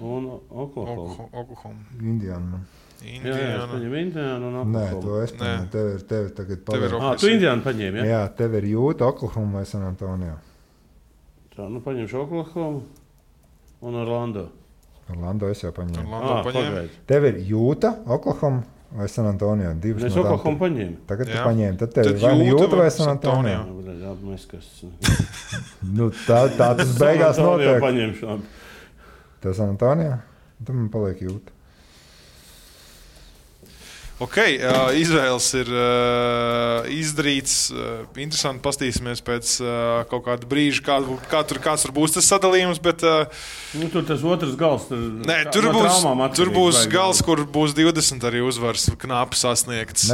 Un Oklahoma.
Indiana.
Jā, es paņemu Indiana un Oklahoma.
Nē, to es paņemu. Tev tagad paliek.
Tu Indiana paņēmi, jā?
Jā, tev ir Jūta, Oklahoma vai San Antonio.
Tā, nu paņemšu Oklahoma un Orlando.
Orlando es jau paņēmu.
Pagaid.
Tev ir Jūta, Oklahoma vai San Antonio?
Es Oklahoma paņēmu.
Tagad tu paņēmi. Tad tev ir vai Jūta vai San Antonio? Nu, tā tas beigās notiek.
Paņemšu.
Tev San Antonio? Tad man paliek Jūta.
Ok, izvēles ir izdarīts. Interesanti pastīsimies pēc kaut kāda brīža, kāds tur būs tas sadalījums. Bet,
tur tas otrs gals.
Tur būs gals, kur būs 20 arī uzvaras knapi sasniegts.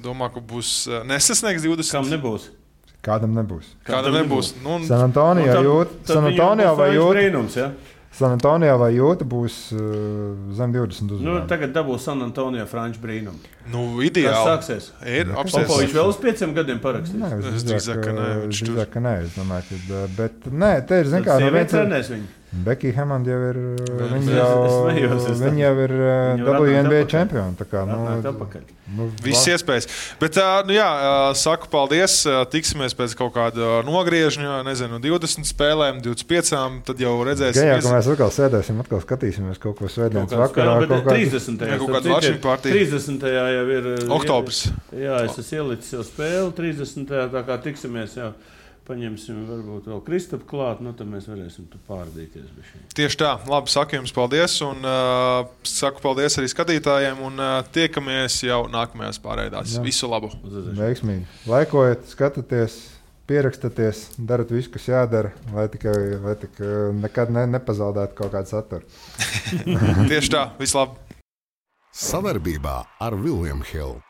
Domā, ka būs nesasniegs 20.
Kam nebūs?
Kādam nebūs.
Nu,
San Antonio vai Jūta? San Antonio vai Jūta būs zem 20 uzvarām.
Nu, tagad dabūs San Antonio Franču brīnumu.
Nu, ideāli.
Kas sāksies? Popovičs vēl uz 5 gadiem parakstīs?
Nē, es drīzāk, ka nē. Es domāju, ka, bet nē, te ir, zin kā, Becky Hammond jau ir, viņa jau ir WNBA čempioni. Tā kā,
viss iespējas. Bet, saku paldies. Tiksimies pēc kaut kāda nogriežņa, 20 spēlēm, 25, tad jau redzēsim.
Jā, ka mēs atkal sēdēsim, atkal skatīsimies kaut ko svētdienas vakarā.
30.
30.
jau ir
oktobrs.
Jā, es esmu ielicis jau spēli 30. Tā kā tiksimies jau. Paņemsim varbūt vēl Kristapu klāt, tad mēs varēsim tu pārdīties.
Tieši tā. Labi, saku jums paldies un saku paldies arī skatītājiem un tiekamies jau nākamajās pārraidās. Visu labu!
Veiksmīgi! Laikojiet, skatieties, pierakstaties, darat visu, kas jādara, lai tikai nekad nepazaudētu kaut kādu saturu.
Tieši tā. Visu labu!
Savarbībā ar William Hill.